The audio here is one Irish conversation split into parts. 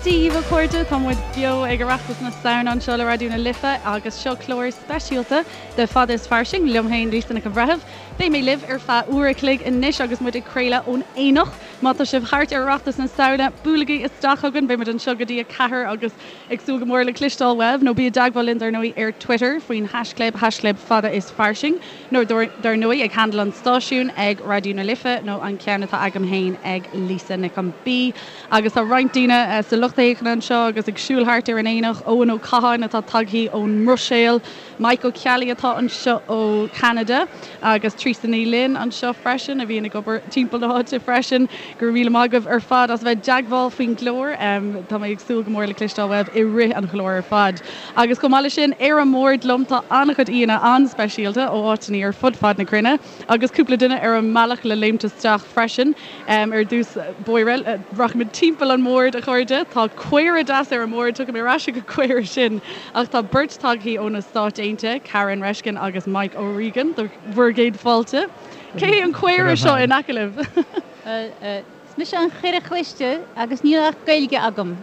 Dia dhaoibh a chairde, tá muid beo ag Oireachtas na Samhna anseo le Raidió na Life agus seo clár speisialta de Fada is Fairsing liom féin Lisa Nic an Bhreithimh. Beidh mé libh ar feadh uair a chloig anois agus muid ag craoladh ón Aonach. Má tá sibh thart ar Oireachtas na Samhna, buailigí isteach chugainn, beidh muid anseo go dtí 4 agus ag súil go mór le cloisteáil uaibh, nó bí i dteagmháil linn dar ndóigh ar Twitter faoin haischlib, haischlib fada is fairsing, nó dar ndóigh ag handle an stáisiúin ag Raidió na Life nó an ceann atá agam féin ag Lisa Nic an B. Agus tá roinnt daoine sa lucht féachana anseo agus ag siúl thart ar an Aonach, Eoin Ó Catháin atá tagthaí ón mBruiséil, Mike Ó Ceallaigh atá anseo ó Cheanada agus Treasa Ní Fhloinn anseo freisin a bhíonn ag obair timpeall na háite freisin. Go raibh míle maith agaibh ar fad as a bheith i dteagmháil faoin gclár. Tá mé ag súil go mór le cloisteáil uaibh i rith an chláir ar fad. Agus chomh maith leis sin, ar an mbord liom tá an-chuid aíonna an-speisialta ó áiteanna ar fud fad na cruinne agus cúpla duine ar an mbealach le léimt isteach freisin. Ar dtús báire, rachaimid timpeall an bhoird, a chairde. Tá caora deas ar an mbord, tiocfaidh mé ar ais ag an gcaora sin. Ach tá beirt tagthaí ó na Stáit Aontaithe, Karen Reshkin agus Mike O'Regan, do bhur gcéad fáilte. Cé hé an caora seo in aice libh? Is mise an chaora chliste agus níl ach Gaeilge agam.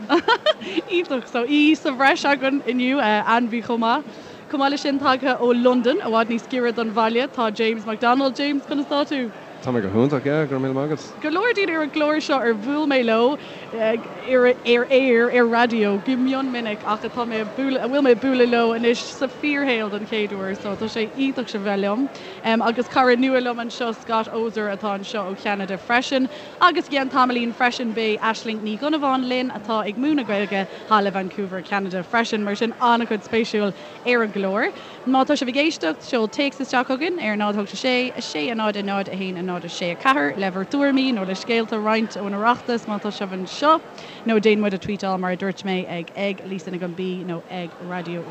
Iontach! So, aoi sa bhreis againn inniu, ainmhí chomh maith. Chomh maith leis sin, tagtha ó Londain, i bhfad níos giorra don bhaile, tá James McDonald. James, conas tá tú? Tá mé go hiontach, yeah, go raibh míle maith agat. Go leor daoine ar an gclár seo ar bhuail mé leo ar aer, ar raidió, go mion minic ach atá mé ag bualadh, a bhfuil mé ag bualadh leo anois sa fíorshaol don chéad uair so tá sé iontach sibh a bheith liom. Agus cara nua liom anseo, Scott Oser atá anseo ó Cheanada freisin. Agus i gceann tamaillín freisin beidh Aisling Ní Dhonnabháin linn atá ag múineadh Gaeilge thall i Vancouver, Ceanada freisin. Mar sin an-chuid spéisiúil ar an gclár. Má tá sibh ag éisteacht, seol téacs isteach chugainn ar 0 8 6 6 0 0 1 0 6 4 le bhur dtuairimí nó le scéalta a roinnt ón Oireachtas má tá sibh anseo, nó déan muid a tweetáil mar a dúirt mé ag ag Lisa Nic an B nó ag Raidió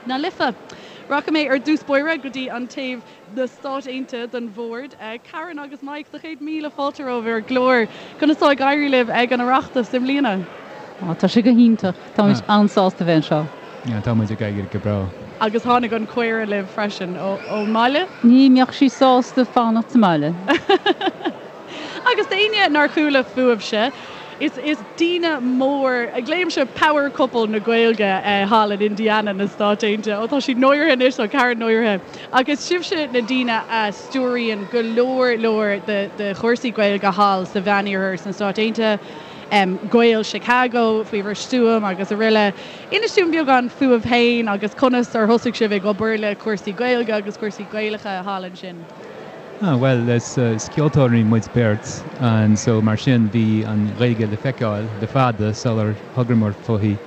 na Life. Rachaidh mé ar dtús báire go dtí an taobh na Stáit Aontaithe den bhord. Karen agus Mike, do chéad míle fáilte romhaibh ar an gclár. Conas tá ag éirí libh ag an Oireachtas i mbliana? Á, tá sé go hiontach. Táimid an-sásta bheith anseo. Yeah, tá muid ag éirí go breá. Agus tháinig an caora libh freisin ón mbaile? Ní mbeadh sí sásta fanacht sa mbaile. Agus d'éinne nár chuala fúibhse, is is daoine mór, glaoimse power couple na Gaeilge thall in Indiana na Stáit Aontaithe. Ó tá siad náirithe anois, tá Karen náirithe. Ach is sibhse na daoine a stiúraíonn go leor leor de de chúrsaí Gaeilge thall sa Mheániarthar sna Stáit Aontaithe, Gaeil Chicago faoi bhur stiúir agus araile. Inis dúinn beagán fúibh féin agus conas ar thosaigh sibh ag obair le cúrsaí Gaeilge agus cúrsaí Gaelacha thall ansin. Ah, bhuel, is ceoltóirí muid beirt and so mar sin bhí an Ghaeilge le feiceáil le fada sular thogamar fúithi.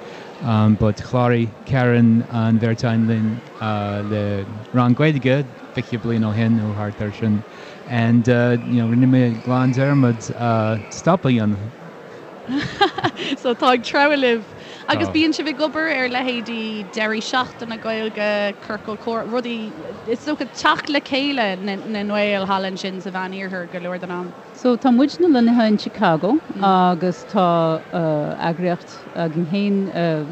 But chláraigh Karen an bheirt againn linn le rang Gaeilge 20 bliain ó shin nó thart ar sin and you know rinne mé glan dearmad stop a dhéanamh. So tá ag treabhadh libh. Agus bíonn sibh ag obair ar leithéidí deirí seachtaine Gaeilge, ciorcal comhrá, rudaí, is dócha teacht le chéile na nGael thall ansin sa Mheán-Iarthar go leor den am. So tá muidne lonnaithe in Chicago agus tá eagraíocht againn féin,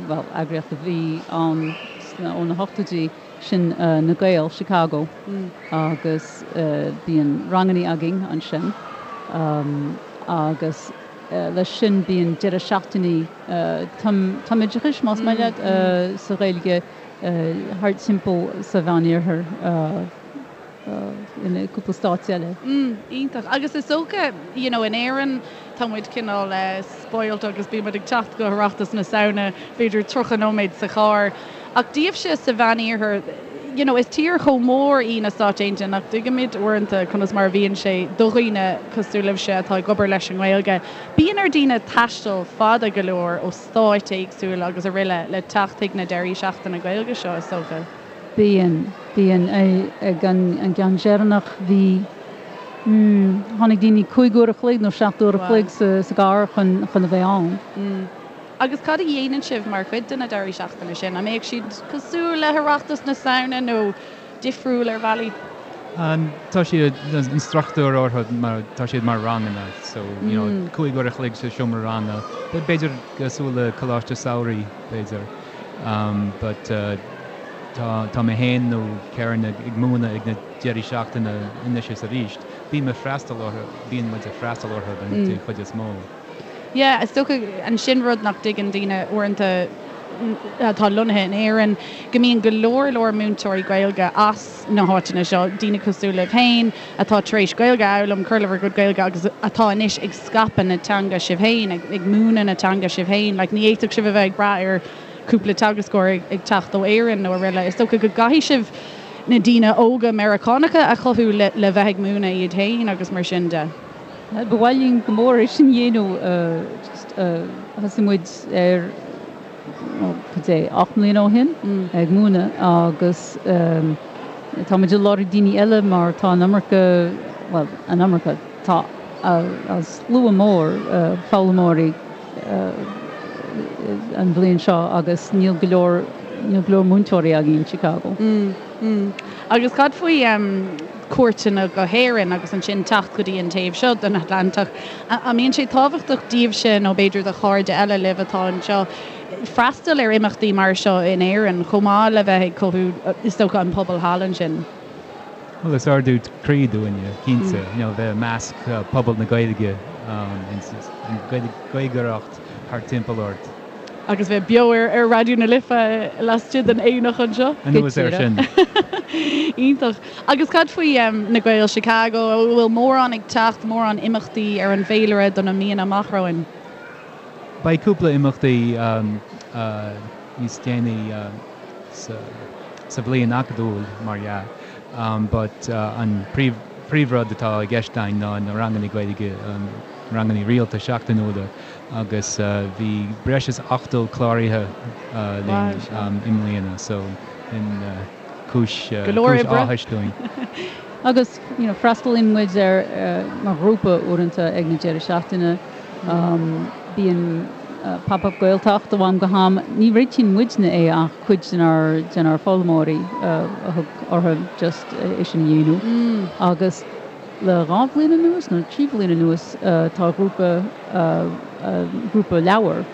bhuel eagraíocht a bhí ann ó na hochtóidí, sin Na Gaeil Chicago agus bíonn rangannaí againn ansin agus leis sin bíonn deireadh seachtainí tumoideachais, más maith leat, sa Ghaeilge thart timpeall sa Mheán-Iarthar in cúpla stáit eile. Iontach. Agus is dócha, you know, in Éirinn tá muid cineál spoilt agus bíonn muid ag teacht go hOireachtas na Samhna b'fhéidir 30 nóiméad sa charr. Ach daoibhse sa Mheán-Iarthar, you know, is tír chomh mór í na Stáit Aontaithe nach dtuigimid uaireanta conas mar a bhíonn sé do dhaoine cosúil libhse atá ag obair leis an nGaeilge. Bíonn ar daoine taisteal fada go leor ó stáit éagsúla agus araile le teacht chuig na deirí seachtaine Gaeilge seo, is dócha. Bíonn, bíonn. Ag an gceann deireanach bhí, mm, tháinig daoine 5 uair a chloig nó 7 uair a chloig sa gcarr chun chun a bheith ann. Mm. Agus cad a dhéanann sibh mar chuid de na deirí seachtaine sin? An mbeadh siad cosúil le hOireachtas na Samhna nó difriúil ar bhealaí? Tá siad, an struchtúr orthu mar, tá siad mar ranganna so, you know, 5 uair a chloig sa seomra ranga, b'fhéidir cosúil le coláiste samhraidh, b'fhéidir. But tá, tá mé féin nó Karen ag múineadh ag na deirí seachtaine anois is arís. Bím ag freastal orthu, bíonn muid ag freastal orthu den chuid is mó. Yeah, is dócha ansin rud nach dtuigeann daoine uaireanta atá lonnaithe in Éirinn, go mbíonn go leor leor múinteoirí Gaeilge as na háiteanna seo, daoine cosúil libh féin atá tar éis Gaeilge a fhoghlaim, cur le bhur gcuid Gaeilge agus atá anois ag scaipeadh na teanga sibh féin, ag múineadh na teanga sibh féin. Like, ní fhéadfadh sibh a bheith ag brath ar cúpla teagascóir ag teacht ó Éirinn nó araile. Is dócha go gcaithfidh sibh na daoine óga Meiriceánacha a chothú le bheith ag múineadh iad féin agus mar sin de. Ba mhaith linn go mór é sin a dhéanamh. Just thosaigh muid air cad é, 8 mbliana ó shin ag múineadh agus tá muid ag lorg daoine eile mar tá an iomarca, bhuel, an iomarca, tá slua mór foghlaimeoirí an bhliain seo agus níl go leor, níl go leor múinteoirí againn in Chicago. Agus cad faoi cuairteanna go hÉirinn agus ansin teacht go dtí an taobh seo den Atlantach? An mbíonn sé tábhachtach daoibhse nó b'fhéidir do chairde eile libh atá anseo freastal ar imeachtaí mar seo in Éirinn chomh maith le bheith ag cothú is dócha an pobal thall ansin? Bhuel is ardú croí dúinne, cinnte, you know bheith i measc pobal na Gaeilge, an Gaeilgeoireacht thart timpeall ort. Agus bheith beo ar Raidió na Life laistigh den aonach anseo. Anuas air sin. Iontach. Agus cad faoi na Gaeil Chicago? An bhfuil mórán ag teacht, mórán imeachtaí ar an bhféilire do na míonna amach romhainn? Beidh cúpla imeachtaí níos déanaí sa bhliain acadúil, mar dhea, but an príomhrud atá i gceist againn ná na ranganna Gaeilge, ranganna rialta seachtainiúla. agus bhí breis is 80 cláraithe linn i mbliana so sin cúis áthais dúinn. Agus you know freastalaíonn muid ar mar ghrúpa uaireanta ag na deireadh seachtaine. Bíonn Pop Up Gaeltacht ó am go ham. Ní réitíonn muidne é ach cuid denár denár foghlaimeoirí a thug orthu just é sin a dhéanamh. Agus Le 2 bhliain anuas, nó 3 bhliain anuas, tá grúpa grúpa leabhar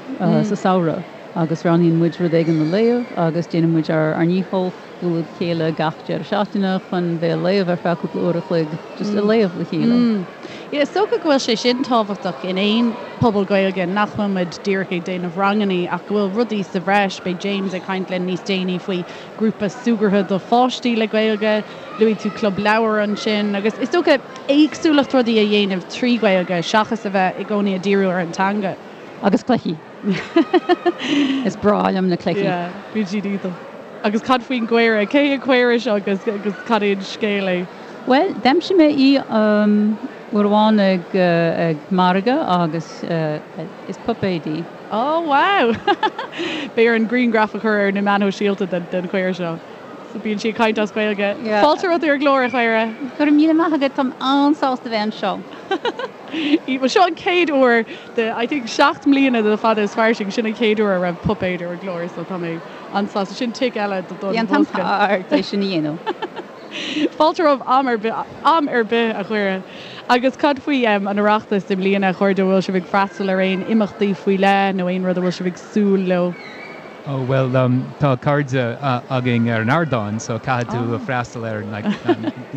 sa samhradh agus roghnaíonn muid rud éigin le léamh agus déanann muid ár ndícheall bualadh le chéile gach deireadh seachtaine chun bheith ag léamh ar feadh cúpla uair a chloig, just ag léamh le chéile. Yeah, is dócha go bhfuil sé sin tábhachtach in aon pobal Gaeilge, nach bhfuil muid díreach ag déanamh rangannaí ach go bhfuil rudaí sa bhreis. Beidh James ag caint linn níos déanaí faoi grúpa súgartha do pháistí le Gaeilge. Luaigh tú Club Leabhar ansin agus is dócha éagsúlacht rudaí a dhéanamh trí Ghaeilge seachas a bheith i gcónaí ag díriú ar an teanga. Agus cluichí. Is breá liom na cluichí. Yeah, bíonn siad iontach. Agus cad faoin gcaora? Cé an caora seo agus agus cad é an scéal é? Bhuel, d'aimsigh mé í uair amháin ag ag margadh agus is puipéad í. Oh wow! Beidh orainn grianghraf a chur ar na meáin shóisialta den chaora seo. So bíonn sí ag caint as Gaeilge. Fáilte romhat ar an gclár, a chaora. Go raibh míle maith agat, táim an-sásta bheith anseo. Bhuel, seo an chéad uair de, I think, 7 mbliana de Fada is Fairsing, sin an chéad uair a raibh puipéad ar an gclár, so tá mé an-sásta. Sin tic eile don bhosca. Bhí an t-am thart é sin a dhéanamh. Fáilte romhat am ar bith, am ar bith, a chaora. Agus cad faoi an Oireachtas i mbliana, a chairde, an bhfuil sibh ag freastal ar aon imeachtaí faoi leith nó aon rud a bhfuil sibh ag súil leo? Oh bhuel tá cairde againn ar an ardán so caithfidh tú freastal ar like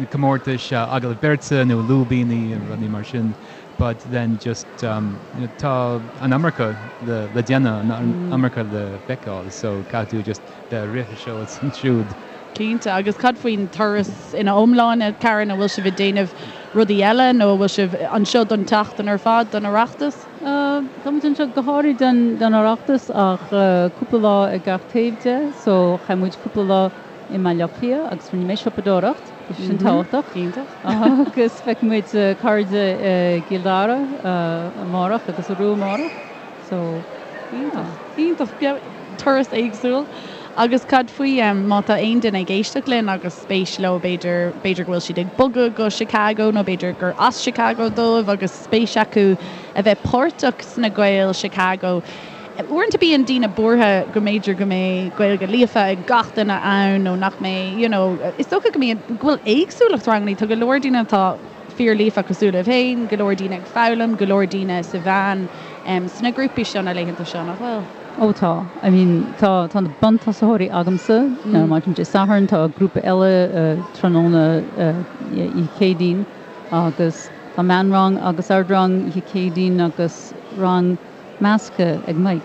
comórtais agallamh beirte nó lúibíní rudaí mar sin but then just tá an iomarca le le déanamh an iomarca le feiceáil so caithfidh tú just bheith ag rith anseo is ansiúd. Cinnte. Agus cad faoin turas ina iomláine, Karen, an bhfuil sibh ag déanamh rudaí eile nó an bhfuil sibh anseo don tseachtain ar fad don Oireachtas? Tá muid anseo go háirid don Oireachtas ach cúpla lá ag gach taobh de so chaith muid cúpla lá i mBaile Átha Cliath agus rinne mé siopadóireacht, bhí sé sin tábhachtach. Iontach. Agus feicfidh muid cairde i gCill Dara amárach agus arú amárach so yeah. Iontach. Turas éagsúil. Agus cad faoi má tá aon duine ag éisteacht linn agus spéis leo b'fhéidir, b'fhéidir go bhfuil siad ag bogadh go Chicago nó b'fhéidir gur as Chicago dóibh agus spéis acu a bheith páirteach sna Gaeil Chicago. Uaireanta bíonn daoine buartha go mb'fhéidir go mbeidh Gaeilge líofa ag gach duine ann nó nach mbeidh, you know, is dócha go mbíonn, go bhfuil éagsúlacht rangannaí, tá go leor daoine atá fíor líofa cosúil libh féin, go leor daoine ag foghlaim, go leor daoine sa mheán sna grúpaí seo na laethanta seo, nach bhfuil? Ó tá. I mean tá tá na buntosaitheoirí agamsa maidin Dé Sathairn, tá grúpa eile tráthnóna oíche Chéadaoin agus tá meánrang agus ardrang oíche Chéadaoin agus. rang measctha ag Mike.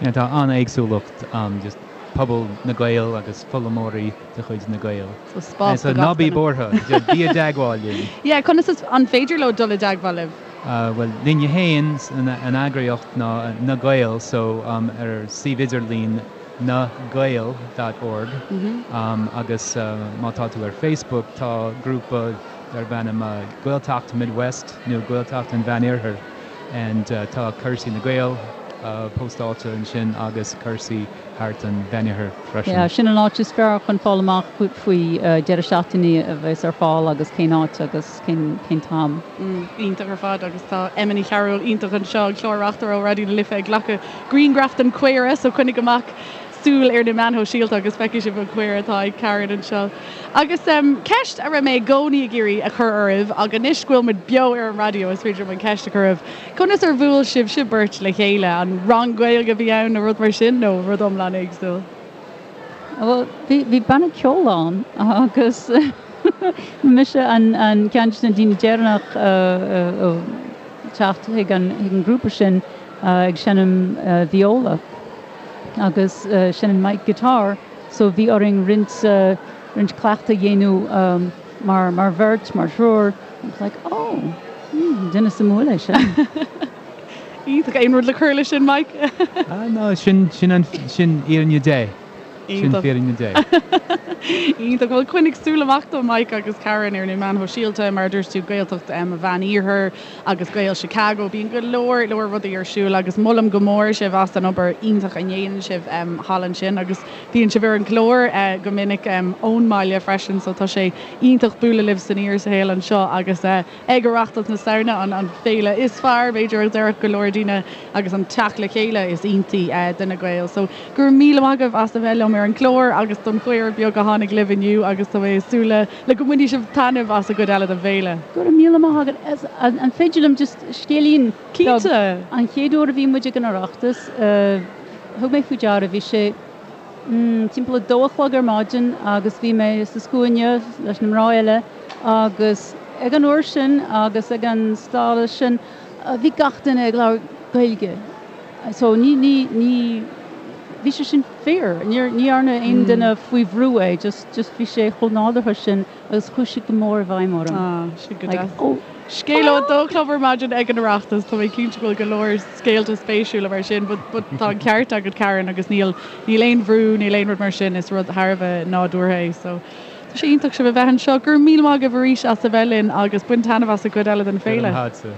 Yeah, tá an-éagsúlacht ann, just pobal na Gael agus foghlaimeoirí de chuid na Gael. So spás do gach duine. Ná bí buartha, bí i dteagmháil linn. Yeah, conas is, an féidir leo dul i dteagmháil libh? Bhuel, linne féin, an eagraíocht ná Na Gaeil, so ar suíomh idirlín nagael dot org agus má tá tú ar Facebook tá grúpa darb ainm Gaeltacht Midwest nó Gaeltacht an Mheánoirthir and tá cúrsaí na Gael postáilte ansin agus cúrsaí thart an Mheánoirthir freisin. Yeah, sin an áit is fearr chun fáil amach faoi deireadh seachtaine a bheas ar fáil agus cén áit agus cén t-am. Iontach ar fad agus tá Emma Ní Chearúil iontach anseo, an clár-reachtaire ó Raidió na Life ag glacadh grianghraf den chaora so coinnigh amach súil ar na meáin shóisialta agus feicfidh sibh an chaora atá ag Karen anseo. Agus ceist a raibh mé i gcónaí ag iarraidh a chur oraibh ach anois go bhfuil muid beo ar an raidió is féidir liom an cheist a chur oraibh, conas ar bhuail sibhse beirt le chéile? An rang Gaeilge a bhí ann nó rud mar sin nó rud iomlán éagsúil? Bhuel, bhí banna ceoil ann agus mise an ceann de na daoine deireanach a teacht chuig an ngrúpa sin ag seinm viola agus seinneann Mike guitar so bhí orainn roinnt roinnt cleachtadh a dhéanamh mar mar bheirt, mar thriúr. I was like, oh, duine suimiúil é sin. Iontach. Aon rud le cur leis sin, Mike? Ah, no, sin, sin an, sin fhírinne Dé. Sin fírinne Dé. Iontach. Bhuel, coinnigh súil amach do Mike agus Karen ar na meáin shóisialta, mar a dúirt tú, Gaeltacht an Mheán-Iarthair agus Gaeil Chicago. Bíonn go leor, leor rudaí ar siúl agus molaim go mór sibh as an obair iontach a ndéanann sibh thall ansin agus bíonn sibh ar an gclár go minic ón mbaile freisin so tá sé iontach bualadh libh san fhíorshaol anseo agus Ag Oireachtas na Samhna, an féile is fearr, b'fhéidir, a déarfadh go leor daoine, agus an teacht le chéile is iontaí do na Gaeil. So, go raibh míle maith agaibh as a bheith liom ar an gclár agus don chaora beag a tháinig libh inniu agus tá mé ag súil le go mbainfidh sibh taitneamh as an gcuid eile den bhféile. Go raibh míle maith agat. An féidir liom just scéilín beag? Cinnte! An chéad uair a bhí muid ag an Oireachtas, thug mé faoi deara, bhí sé timpeall a dó a chlog ar maidin agus bhí mé sa scuaine leis na mná eile agus ag an uair sin agus ag an stádas sin bhí gach duine ag labhairt Gaeilge so ní, ní, ní, bhí sé sin fíor, níor, ní dhearna aon duine faoi bhrú é, just, just bhí sé chomh nádúrtha sin agus chuaigh sé go mór i bhfeidhm orm. Ah, sin go Like, deas. oh. Scéal ó a dó a chlog ar maidin ag an Oireachtas, tá mé cinnte go bhfuil go leor scéalta spéisiúla mar sin but, but tá an ceart agat Karen agus níl, níl aon bhrú, níl aon rud mar sin, is rud thar a bheith nádúrtha é so. Tá sé iontach sibh a bheith anseo. Go raibh míle maith agaibh arís as a bheith linn agus bain taitneamh as an gcuid eile den féile.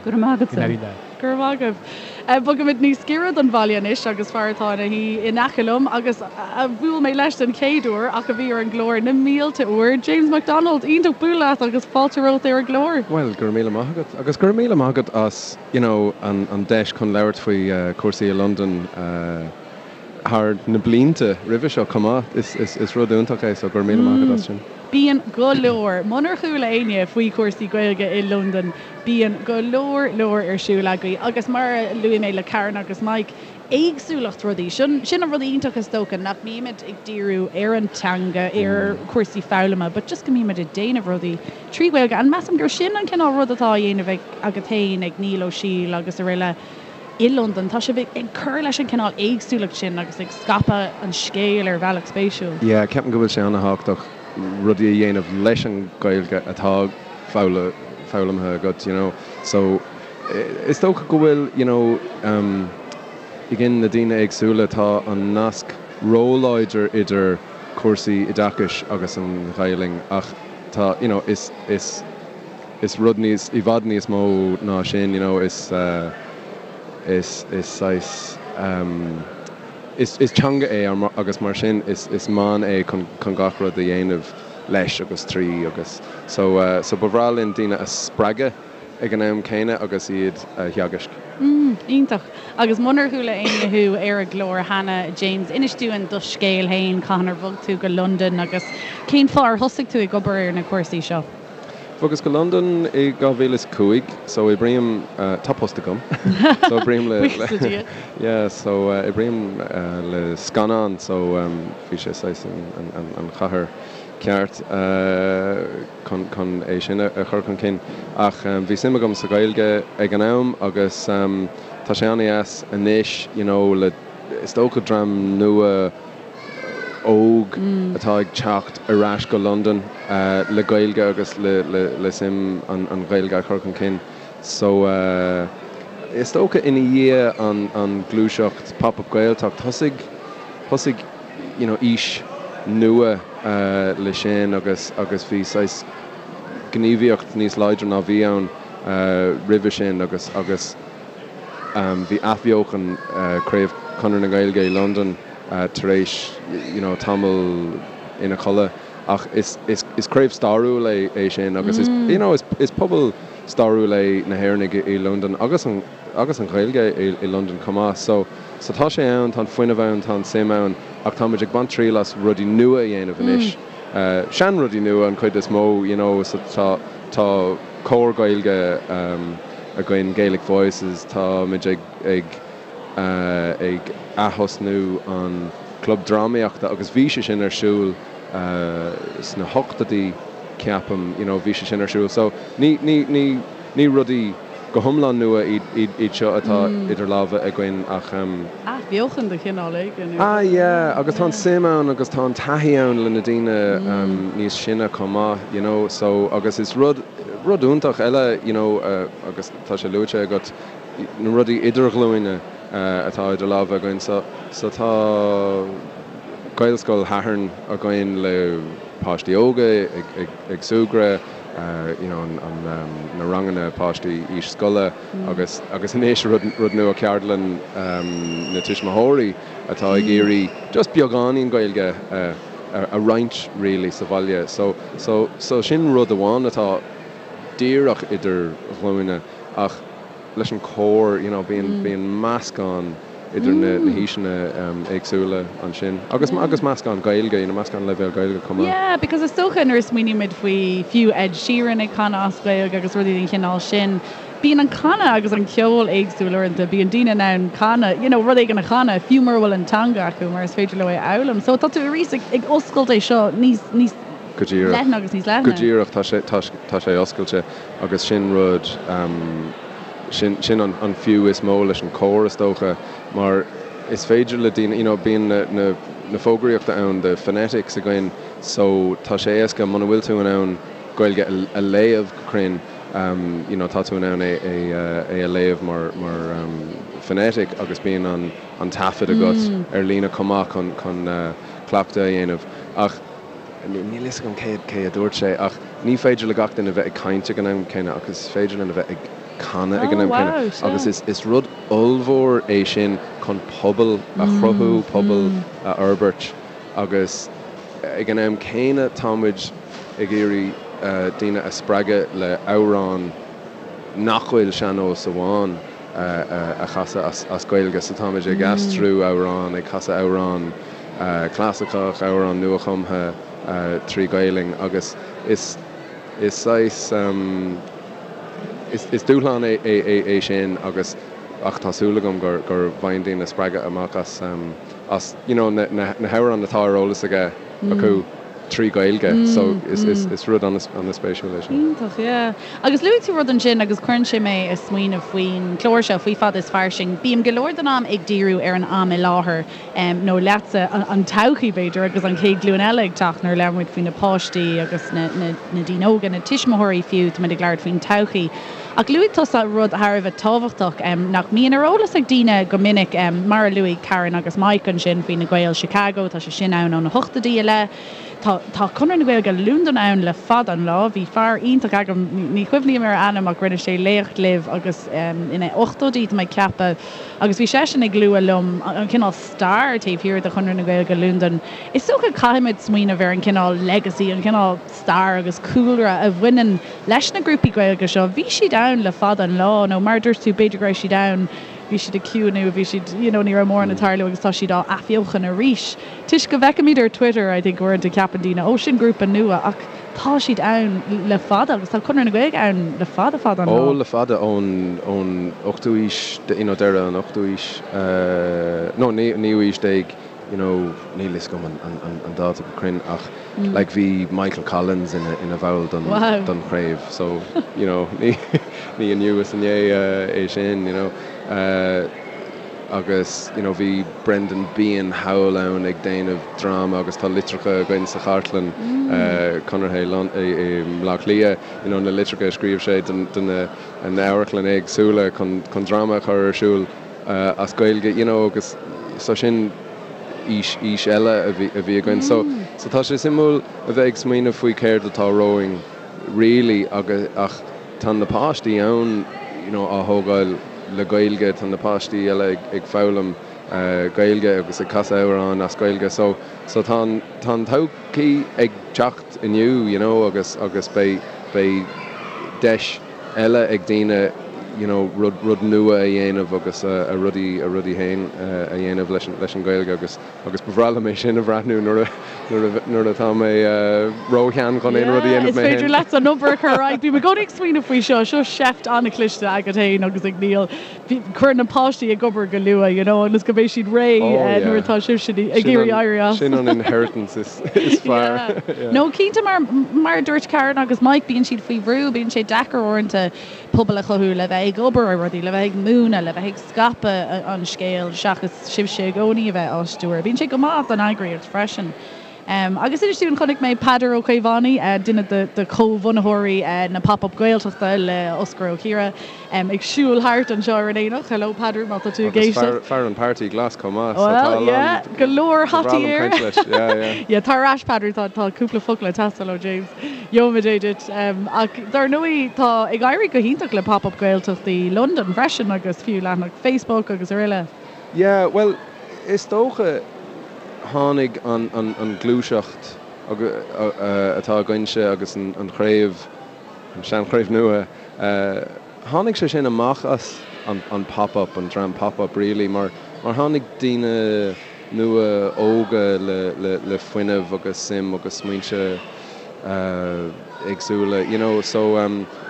Go raibh maith agatsa. Go raibh maith agaibh. Bogaimid níos giorra don bhaile anois agus fear atá ina shuí in aice liom agus a bhuail mé leis den chéad uair ach a bhí ar an gclár na mílte uair, James McDonald. Iontach bualadh leat agus fáilte romhat ar an gclár. Bhuel, go raibh míle maith agat. Agus go raibh míle maith agat as, you know, an deis chun labhairt faoi chúrsaí i Londain. thar na blianta roimhe seo chomh maith. Is rud iontach é so go raibh míle maith agat as sin. Bíonn go leor, munar chuala éinne faoi chúrsaí Gaeilge i Londain, bíonn go leor leor ar siúl agaibh agus mar a luaigh mé le Karen agus Mike, éagsúlacht rudaí. Sin sin an rud iontach is dócha, nach mbímid ag díriú ar an teanga, ar chúrsaí foghlama, but just go mbímid ag déanamh rudaí trí Ghaeilge and measaim gur sin an cineál rud atá á dhéanamh ag agat féin, ag Niall Ó Siail agus araile. i Londain. Tá sibh ag cur leis an cineál éagsúlacht sin agus ag scaipeadh an scéil ar bhealach spéisiúil. Yeah, ceapaim go bhfuil sé an-thábhachtach rudaí a dhéanamh leis an Ghaeilge atá foghlamtha agat, you know. So, is dócha go bhfuil, you know, again na daoine éagsúla, tá an nasc róláidir idir cúrsaí oideachais agus an Ghaelainn ach tá, you know, is, is, is rud níos, i bhfad níos mó ná sin, you know, is, is, is saghas, is, is teanga é agus mar sin is, is meán é chun, chun gach rud a dhéanamh leis agus trí agus so, so ba bhreá linn daoine a spreagadh ag an am céanna agus iad a theagaisc. Mm, iontach. Agus munar chuala éinne thú ar an gclár cheana, James, inis dúinn do scéal féin, cathain ar bhog tú go Londain agus cén fáth ar thosaigh tú ag obair ar na cúrsaí seo? Bhogas go Londain i 2005 so oibrím, tá post agam, so oibrím le, Buíochas le Dia. yeah, so oibrím le scannán so bhí sé saghas an chathair ceart chun chun é sin a chur chun cinn. Ach bhí suim agam sa Ghaeilge ag an am agus. tá sé an-deas anois you know le is dócha dream nua óg atá ag teacht ar ais go Londain le Gaeilge agus le suim an Ghaeilge a chur chun cinn. So is dócha ina dhiaidh an gluaiseacht Pop Up Gaeltacht thosaigh thosaigh you know aois nua le sin agus agus bhí saghas gníomhaíocht níos láidre ná bhí ann roimhe sin agus agus bhí athbheochan Craobh Chonradh na Gaeilge i Londain tar éis you know tamall ina chodladh ach is is is craobh stairiúil é é sin agus is you know is is pobal stairiúil é na hÉireannaigh i Londain agus an agus an Ghaeilge i i Londain chomh maith so so tá sé ann tá an fuinneamh ann tá an suim ann ach tá muid ag baint triail as rudaí nua a dhéanamh anois sean rudaí nua an chuid is mó you know so tá tá cór Gaeilge againn Gaelic Voices tá muid ag ag ag athosnú an Club Drámaíochta agus bhí sé sin ar siúl sna hochtóidí ceapaim, you know bhí sé sin ar siúl. So ní, ní, ní, ní rudaí go hiomlán nua iad, iad, iad seo atá idir lámha againn ach. Athbheochan de chineál éigin. Ah yeah, agus tá an suim ann agus tá an taithí ann le na daoine níos sine chomh maith, you know, so agus is rud, rud iontach eile, you know, agus tá sé luaite agat, na rudaí idirghlúine atá idir lámha againn. So so tá Gaelscoil Shathairn againn le páistí óga ag ag ag súgradh, you know an an na ranganna páistí aois scoile agus agus anois rud rud nua ceardlann na tuismitheoirí atá ag iarraidh just beagáinín Gaeilge a a roinnt really sa bhaile. So so so sin rud amháin atá díreach idir ghlúine ach leis an cór you know bíonn bíonn meascán idir na na haoiseanna éagsúla ansin agus agus meascán Gaeilge you know meascán leibhéal Gaeilge chomh maith. Yeah because is dócha nuair a smaoinímid faoi fiú Ed Sheeran ag canadh as Gaeilge agus rudaí den chineál sin bíonn an canadh agus an ceol éagsúil uaireanta bíonn daoine in ann canadh you know rud éigin a chanadh fiú mura bhfuil an teanga acu mar is féidir leo é a fhoghlaim so tá tú arís ag ag oscailt é seo níos níos Go díreach. leithne agus níos leithne. Go díreach tá sé tá tá sé oscailte. Agus sin rud, sin, sin an, an fiú is mó leis an cór is dócha, mar is féidir le daoine, you know, bíonn na, na, na fógraíochta ann, the phonetics againn, so tá sé éasca muna bhfuil tú in ann Gaeilge a, a léamh go cruinn, you know, tá tú in ann é, é, é a léamh mar, mar phonetic agus bíonn an, an taifead agat ar líne chomh maith chun, chun cleachtadh a dhéanamh. Ach. Níl fhios agam cé cé a dúirt sé ach ní féidir le gach duine bheith ag caint ag an am céanna ach is féidir linn a bheith ag canadh ag an am céanna agus is is rud ollmhór é sin chun pobal a chruthú, pobal a fhorbairt agus ag an am céanna tá muid ag iarraidh daoine a spreagadh le amhráin nach bhfuil sean-nós amháin a chasadh as Gaeilge so táimid ag aistriú amhrán, ag casadh amhrán clasaiceach, amhrán nuachumtha trí Ghaelainn agus is is saghas is dúshlán é é sin agus ach tá súil agam gur gur bhfaigheann daoine spreagadh amach as as you know na na hamhráin atá ar eolas aige acu. trí Ghaeilge so is rud an-spéisiúil é sin. Iontach, yeah. Agus luaigh tú rud ansin agus cuireann sé mé ag smaoineamh faoin chlár seo, faoi Fada is Fairsing. Bím go leor den am ag díriú ar an am i láthair, nó leatsa, an todhchaí b'fhéidir, agus an chéad ghlúin eile ag teacht nuair a labhraíonn muid faoi na páistí agus na daoine óga, na tuismitheoirí fiú, tá muid ag labhairt faoin todhchaí. Ach luaigh tusa rud thar a bheith tábhachtach nach mbíonn ar eolas ag daoine go minic, mar a luaigh Karen agus Mike ansin faoi na Gaeil Chicago, tá sé sin ann ó na hochtóidí i leith. Tá tá Conradh na Gaeilge Londain ann le fada an lá. Bhí fear iontach agam, ní chuimhním ar a ainm ach rinne sé léacht libh agus ina ochtóidí tá mé ag ceapadh agus bhí seisean ag lua liom an cineál stair taobh thiar de Chonradh na Gaeilge Londain. Is dócha caithfimid smaoineamh ar an cineál legacy, an cineál stair agus cúlra a bhaineann leis na grúpaí Gaeilge seo, bhí siad ann le fada an lá, nó mar a dúirt tú, b'fhéidir go raibh siad ann, bhí siad ag ciúnú, bhí siad, you know, ní raibh mórán ag tarlú agus tá siad á athbheochan arís. Toisc go bhfeicimid ar Twitter, I think, uaireanta ceapann daoine, oh, sin grúpa nua, ach tá siad ann le fada agus tá Conradh na Gaeilge ann le fada fada an lá. Ó, le fada, ón, ón ochtú haois, you know, deireadh an ochtú haois, no, naoú haois déag, you know, níl fhios agam an dáta go cruinn ach like bhí Michael Collins ina ina bhall don don chraobh so you know ní ní inniu is inné é sin you know. Agus you know bhí Brendan Behan thall ann ag déanamh dráma agus tá litreacha againn sa chartlann Conartha i mBleá Cliath, you know na litreacha a scríobh sé do na amharclann éagsúla chun chun dráma a chur ar siúl as Gaeilge, you know agus so sin aois aois eile a bhí a bhí againn. So so tá sé suimiúil a bheith ag smaoineamh faoi céard atá romhainn really agus ach Tá na páistí ann you know á thógáil le Gaeilge, tá na páistí eile ag foghlaim Gaeilge agus ag casadh amhráin as Gaeilge so so tá an tá an todhchaí ag teacht inniu you know agus agus beidh beidh deis eile ag daoine you know rud rud nua a dhéanamh agus a rudaí a rudaí féin a dhéanamh leis an leis an Ghaeilge agus Agus ba bhreá liom é sin a bhreathnú nuair a nuair atá mé róshean chun aon rud a dhéanamh mé féin. Is féidir leat an obair a chur ar aghaidh. Bím i gcónaí ag smaoineamh faoi seo. Seo seift an-chliste agat féin agus ag Niall. Cuir na páistí ag obair go luath, you know, ionas go mbeidh siad réidh nuair atá sibhse ag iarraidh éirí as. Sin an inheritance is fearr. No, cinnte mar mar a dúirt Karen agus Mike, bíonn siad faoi bhrú, bíonn sé deacair uaireanta pobal a chothú le bheith ag obair ar rudaí, le bheith ag múineadh, le bheith ag scaipeadh an scéil seachas sibhse i gcónaí a bheith á stiúradh. Bíonn sé go maith don eagraíocht freisin. Agus inis dúinn, chonaic mé Peadar Ó Caomhánaigh, duine de chomhbhunaitheoirí na Pop Up Gaeltachta le Osgur Ó Ciardha, ag siúl thart anseo ar an aonach. Hello Peadar, má tá tú ag éisteacht. Agus fear an Páirtí Glas chomh maith, so tá a lán. Well, yeah, go leor hataí air. Ba bhreá liom caint leis, yeah, yeah. Yeah, tar ar ais Peadar, tá cúpla focal ag teastáil ó James. Gheobhaimid é duit. Ach dar ndóigh, tá ag éirí go hiontach le Pop Up Gaeltachtaí Londain freisin agus fiú leathanach Facebook agus araile. Yeah, bhuel, is dócha tháinig an an ghluaiseacht atá againnse agus an chraobh, an seanchraobh nua, tháinig sé sin amach as an Pop Up, an dream Pop Up really, mar mar tháinig daoine nua óga le le fuinneamh agus suim agus smaointe éagsúla, you know, so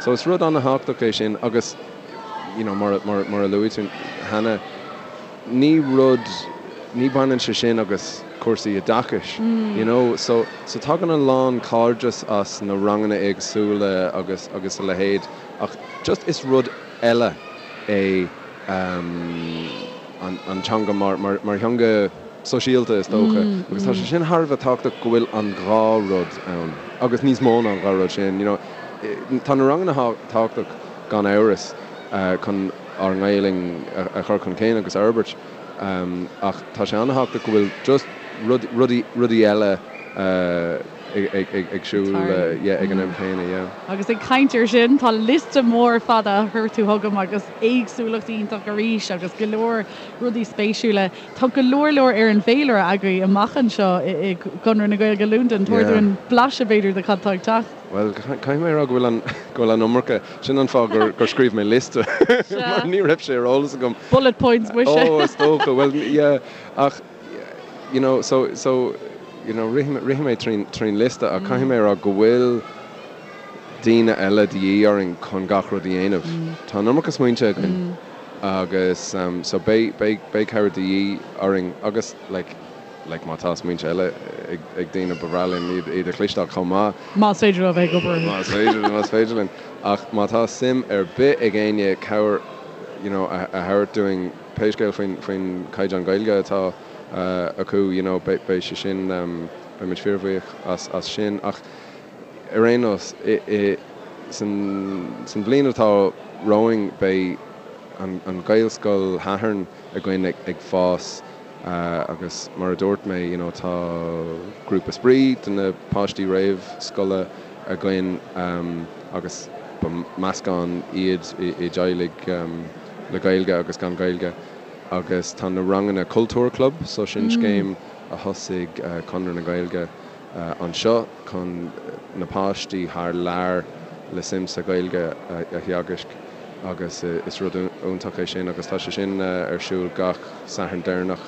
so is rud an-thábhachtach é sin agus you know mar mar mar a luaigh tú cheana, ní rud, ní bhaineann sé sin agus cúrsaí oideachais, you know, so so tagann a lán cairdeas as na ranganna éagsúla agus agus a leithéid ach just is rud eile é an an teanga mar mar mar theanga sóisialta is dócha agus tá sé sin thar a bheith tábhachtach go bhfuil an dhá rud ann agus níos mó ná an dhá rud sin, you know. Tá na ranganna tábhachtach gan amhras chun ár nGaelainn a chur chun cinn agus a fhorbairt ach tá sé an-thábhachtach go bhfuil just rudaí rudaí eile ag siúl ag an am céanna, yeah. Agus ag caint ar sin, tá liosta mór fada a chuir tú chugam agus éagsúlacht iontach arís agus go leor rudaí spéisiúla. Tá go leor leor ar an bhféilire agaibh amach anseo i gConradh na Gaeilge Londain. Tabhair dúinn blaiseadh b'fhéidir de cad tá ag teacht. Bhuel, caithfidh mé a rá go bhfuil an, go bhfuil an iomarca, sin an fáth gur, gur scríobh mé liosta mar ní raibh sé ar eolas agam. Bullet points muise. Ó, is dócha, bhuel, yeah, ach, you know, so, so, you know, rithfidh, rithfidh mé trín, trín liosta ach caithfidh mé a rá go bhfuil daoine eile de dhíth orainn chun gach rud a dhéanamh. Tá an iomarca smaointe againn agus so beidh, beidh, beidh cabhair de dhíth orainn agus like, like má tá smaointe eile ag, ag daoine ba bhreá linn iad, iad a chloisteáil chomh maith. Más féidir leo a bheith ag obair. Más féidir, más féidir linn. Ach má tá suim ar bith ag éinne cabhair you know a, a thabhairt dúinn pé scéal faoin, faoin caighdeán Gaeilge atá acu you know beidh, beidh sé sin, beidh muid fíorbhuíoch as, as sin. Ach ar aon nós, i, i, san, san bhliain atá romhainn beidh an, an Ghaelscoil Shathairn againn ag, ag fás agus mar a dúirt mé you know tá grúpa spraoi do na páistí réamhscoile againn agus ba meascán iad i dteaghlaigh le Gaeilge agus gan Gaeilge agus tá na ranganna Cultúr Club so sin scéim a thosaigh Conradh na Gaeilge anseo chun na páistí thar lear le suim sa Ghaeilge a theagasc agus is rud iontach é sin agus tá sé sin ar siúl gach Satharn deireanach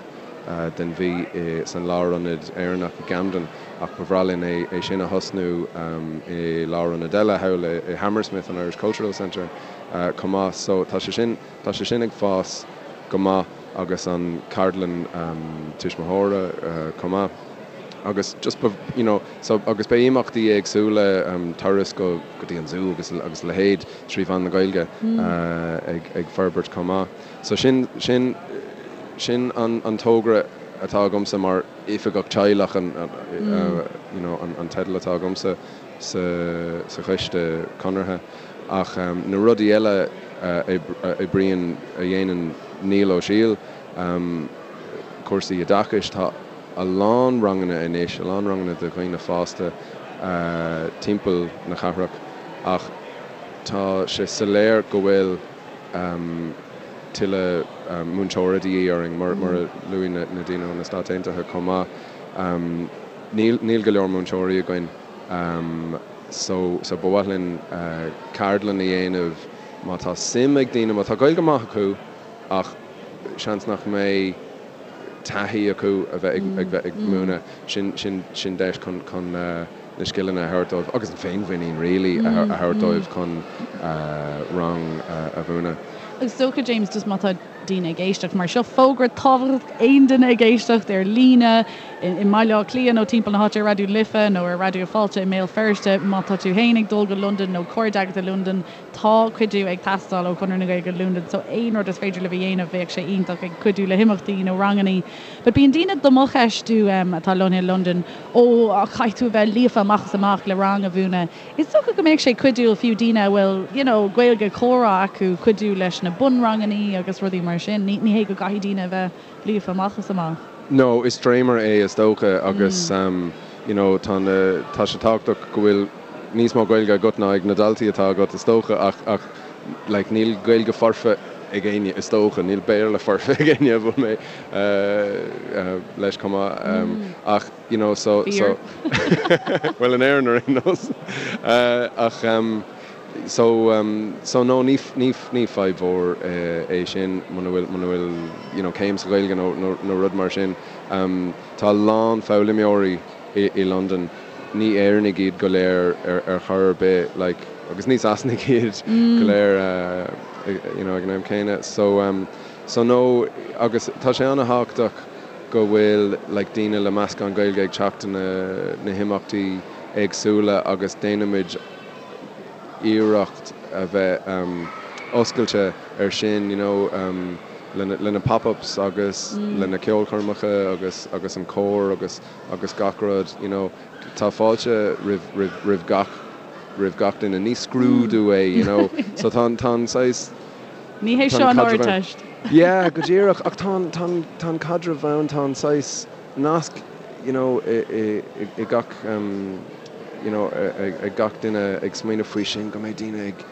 den mhí san Lárionad Éireannach i gCamden ach ba bhreá linn é sin a thosnú i lárionad eile thall i Hammersmith, an Irish Cultural Centre chomh maith. So tá sé sin, tá sé sin ag fás go maith agus an ceardlann tuismitheora chomh maith. Agus just you know so agus beidh imeachtaí éagsúla, turas go go dtí an zú agus agus a leithéid trí mheán na Gaeilge ag ag forbairt chomh maith. So sin sin sin an an togra atá agamsa mar oifigeach teaghlach an you know an an teideal atá agamsa sa sa choiste conartha. Ach na rudaí eile a oibríonn a dhéanann Niall Ó Siail, cúrsaí oideachais, tá a lán ranganna anois, a lán ranganna do dhaoine fásta timpeall na cathrach ach tá sé soiléir go bhfuil tuilleadh múinteora de dhíth orainn, mar a luaigh na daoine ó na Stáit Aontaithe chomh maith. Níl go leor múinteoirí againn so so ba mhaith linn ceardlann a dhéanamh má tá suim ag daoine, má tá Gaeilge maith acu ach seans nach mbeidh taithí acu a bheith ag bheith ag múineadh, sin sin sin deis chun chun na scileanna a thabhairt dóibh agus an féinmhuinín really a thabhairt dóibh chun rang a mhúineadh. Is dócha James just má tá daoine ag éisteacht mar seo fógra tábhachtach aon duine ag éisteacht ar líne i mBaile Átha Cliath nó timpeall na háite ar Raidió Life nó ar Raidió Fáilte i mBéal Feirste má tá tú féin ag dul go Londain nó cairde agat i Londain Tá cuidiú ag teastáil ó Chonradh na Gaeilge Londain so aon rud is féidir libh a dhéanamh bheadh sé iontach ag cuidiú le himeachtaí nó rangannaí. But bíonn daoine do mo cheistiú atá lonnaithe i Londain ó caithfidh tú a bheith líofa amach is amach le rang a mhúineadh. Is dócha go mbeadh sé cuidiúil fiú daoine a bhfuil you know Gaeilge comhrá acu cuidiú leis na bunrangannaí agus rudaí mar sin. Ní hé go gcaithfidh daoine a bheith líofa amach is amach. No, is dréimire é is dócha agus you know tá na, tá sé tábhachtach go bhfuil níos mó Gaeilge agat ná ag na daltaí atá agat is dócha ach, ach like níl Gaeilge foirfe ag éinne is dócha, níl Béarla foirfe ag éinne a bhfuil mé leis chomh maith ach you know so, so bhuel in Éirinn ar aon nós ach So, so no, ní, ní, ní fadhb mhór é sin muna bhfuil, muna bhfuil, you know, céim sa Ghaeilge nó, nó, nó rud mar sin. Tá a lán foghlaimeoirí i, i Londain, ní Éireannaigh iad go léir ar, ar chor ar bith, like, agus ní Sasanaigh iad go léir, you know, ag an am céanna. So, so no, agus tá sé an-thábhachtach go bhfuil, like, daoine le meascán Gaeilge ag teacht na, na himeachtaí éagsúla agus déanaimid iarracht a bheith oscailte ar sin, you know, le na pop-ups agus le na ceolchoirmeacha agus agus an cór agus agus gach rud, you know. Tá fáilte roimh roimh roimh gach roimh gach duine. Ní scrúdú é, you know. So tá an tá an saghas Ní hé seo an Ardteist. Yeah, go díreach. Ach tá an tá an tá an caidreamh ann, tá an saghas nasc, you know, i i i gach you know, ag gach duine ag smaoineamh faoi sin, go mbeidh daoine ag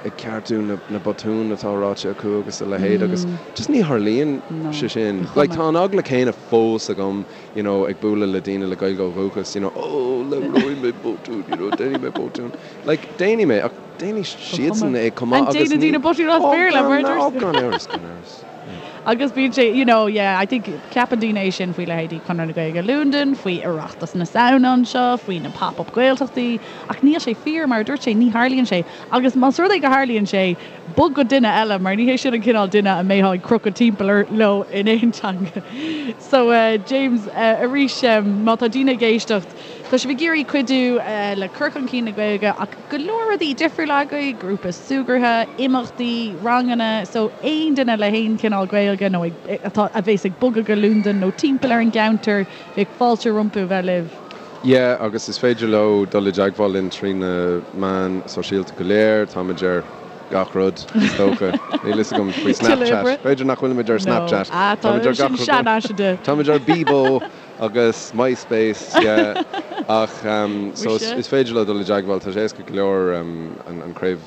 ag ceartú na na botúin atá ráite acu agus a leithéid agus just ní tharlaíonn sé sin. Like tá an eagla céanna fós agam, you know, ag bualadh le daoine le Gaeilge ó dhúchas, you know, oh labhróidh mé botún, you know, déanfaidh mé botún. Like déanfaidh mé ach déanfaidh siadsan é chomh maith agus ní. Déanann daoine botún as Béarla, mar a dúirt. Oh gan amhras, gan amhras. Agus bíonn sé, you know, yeah, I think, ceapann daoine é sin faoi leithéidí Conradh na Gaeilge Londain, faoi Oireachtas na Samhna anseo, faoi na pop-up Gaeltachtaí, ach níl sé fíor, mar a dúirt sé, ní tharlaíonn sé. Agus más rud é go tharlaíonn sé, bog go duine eile, mar ní hé sin an cineál duine a mbeifeá ag crochadh timpeall leo in aon teanga. So, James, arís, má tá daoine ag éisteacht, tá sibh ag iarraidh cuidiú le cur chun cinn na Gaeilge ach go leor rudaí difriúla agaibh, grúpa súgartha, imeachtaí, ranganna, so aon duine le haon chineál Gaeilge nó atá, a bhéas ag bogadh go Londain nó timpeall ar an gceantar, bheadh fáilte rompu a bheith libh. Yeah, agus is féidir leo dul i dteagmháil linn trí na meáin sóisialta go léir, táimid ar gach rud, is dócha. Níl fhios agam faoi Snapchat. B'fhéidir nach bhfuilimid ar Snapchat. No, ah, tá, sin seanfhaiseanta. Táimid ar Bebo! Agus MySpace, yeah. Ach so is féidir leo dul i dteagmháil, tá sé éasca go leor an craobh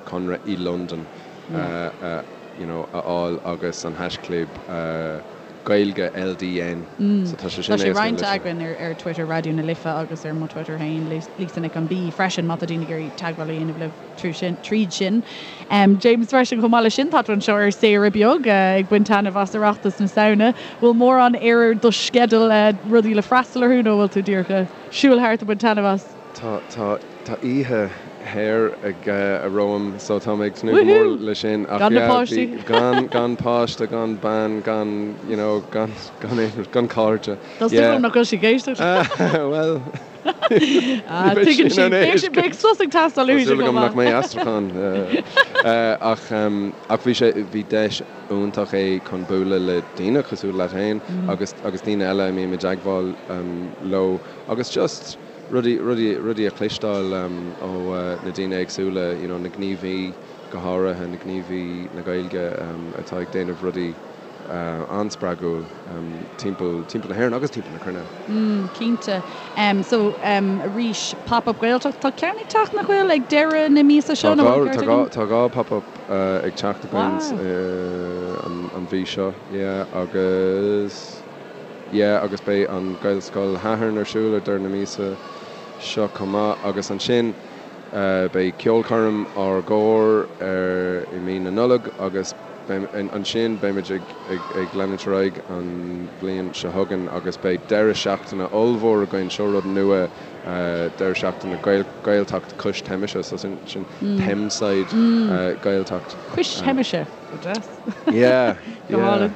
Conradh i Londain you know a fháil agus an haischlib Gaeilge LDN. So tá sé sin éasca. Tá sé roinnte againn ar Twitter Raidió na Life agus ar mo Twitter féin, Lisa Nic an B freisin má tá daoine ag iarraidh teagmháil a dhéanamh libh. tríd sin. James freisin chomh maith leis sin tá tú anseo ar saoire beag ag baint taitneamh as Oireachtas na Samhna. Bhfuil mórán ar do sceideal rudaí le freastal orthu nó bhfuil tú díreach ag siúl thart ag baint taitneamh as? Tá tá tá oíche shaor ag romham so tá mé ag tnúth go mór le sin ach Gan na yeah páistí. bhí gan gan páiste gan bean gan you know gan gan aon rud gan cairde Tá súil yeah agam nach bhfuil sí ag éisteacht. bhuel Ah ní bheidh tuigeann sí sí in ann beidh éist beidh sos ag teastáil Tá uaithi súil chomh agam nach maith. mbeidh aistriúchán ach ach bhí sé bhí deis iontach é chun bualadh le daoine cosúil leat féin agus agus daoine eile a mbím i dteagmháil leo agus just rudaí, rudaí, rudaí a chloisteáil ó na daoine éagsúla, you know na gníomhaí go háirithe, na gníomhaí na Gaeilge atá ag déanamh rudaí an-spreagúil timpeall, timpeall na hÉireann agus timpeall na cruinne. Mm, cinnte. So, arís, Pop Up Gaeltacht, tá ceann ag teacht nach bhfuil, ag deireadh na míosa seo, Tá nó dhá, bhfuil tá ceart dhá, agam? tá dhá Pop Up ag teacht againn Wow. an mhí seo, yeah, agus. Yeah agus beidh an Gaelscoil Shathairn ar siúl ar deireadh na míosa seo chomh maith agus ansin beidh ceolchoirm ár gcór ar i mí na Nollag agus ansin beimid ag ag leanúint ar aghaidh an bhliain seo chugainn agus beidh deireadh seachtaine ollmhór againn, seo rud nua, deireadh seachtaine Gaeltacht cois Teimise so sin sin Thameside Gaeltacht. Cois Teimise, go deas. Yeah, Go yeah. hálainn.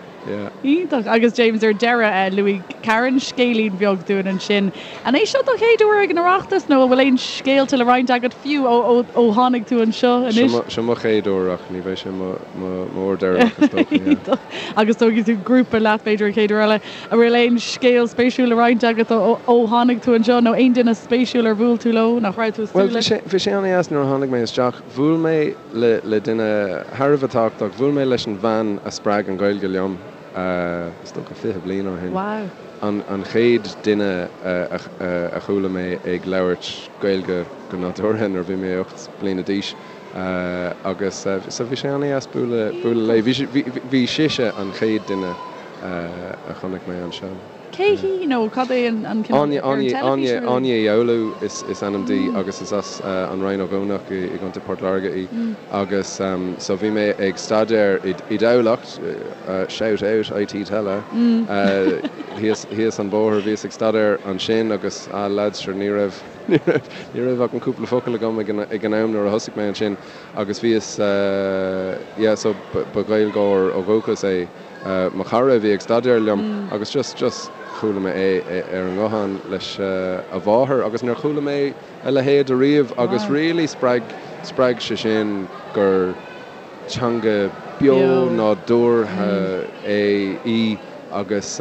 Iontach. Agus James, ar deireadh, luaigh Karen scéilín beag dúinn ansin. An é seo do chéad uair ag an Oireachtas nó an bhfuil aon scéalta le roinnt agat fiú ó tháinig tú anseo anois? Seo mo chéad uair ach ní bheidh sé mo uair deireanach is dócha, yeah. Iontach. Agus tógfaidh tú grúpa leat b'fhéidir an chéad uair eile. An bhfuil aon scéal spéisiúil le roinnt agat ó tháinig tú anseo nó aon duine spéisiúil ar bhuail tú leo nach raibh tú ag Bhuel, súil leis? bhí sé an-dheas nuair a tháinig mé isteach. Bhuail mé le le duine thar a bheith tábhachtach. Bhuail mé leis an bhean a spreag an Ghaeilge liom, is dócha 20 bliain ó shin. Wow. An an chéad duine a a chuala mé ag labhairt Gaeilge go nádúrtha nuair a bhí mé 8 bliana d'aois agus so bhí sé an-dheas bualadh bualadh léi. Bhí bhí bhí sise an chéad duine a chonaic mé anseo. Cé hí nó cad é an cineál Áine ar an Áine teilifís Áine nó Áine Uí Fhoghlú is is ainm di agus is as an Rinn Ó gCuanach i i gContae Port Láirge í agus so bhí mé ag staidéar i i dTamhlacht, shout out IT Tallaght, thíos thíos an bóthar bhíos ag staidéar ansin agus ah lads sure ní raibh ní raibh ní raibh ach an cúpla focal agam ag an ag an am nuair a thosaigh mé ansin agus bhíos yeah so ba ba Ghaeilgeoir ó dhúchas é mo chara a bhí ag staidéar liom agus just, just chuala mé é ar an nguthán leis a mháthair agus níor chuala mé a leithéid ariamh agus really spreag, spreag sé sin gur teanga beo nádúrtha é, í agus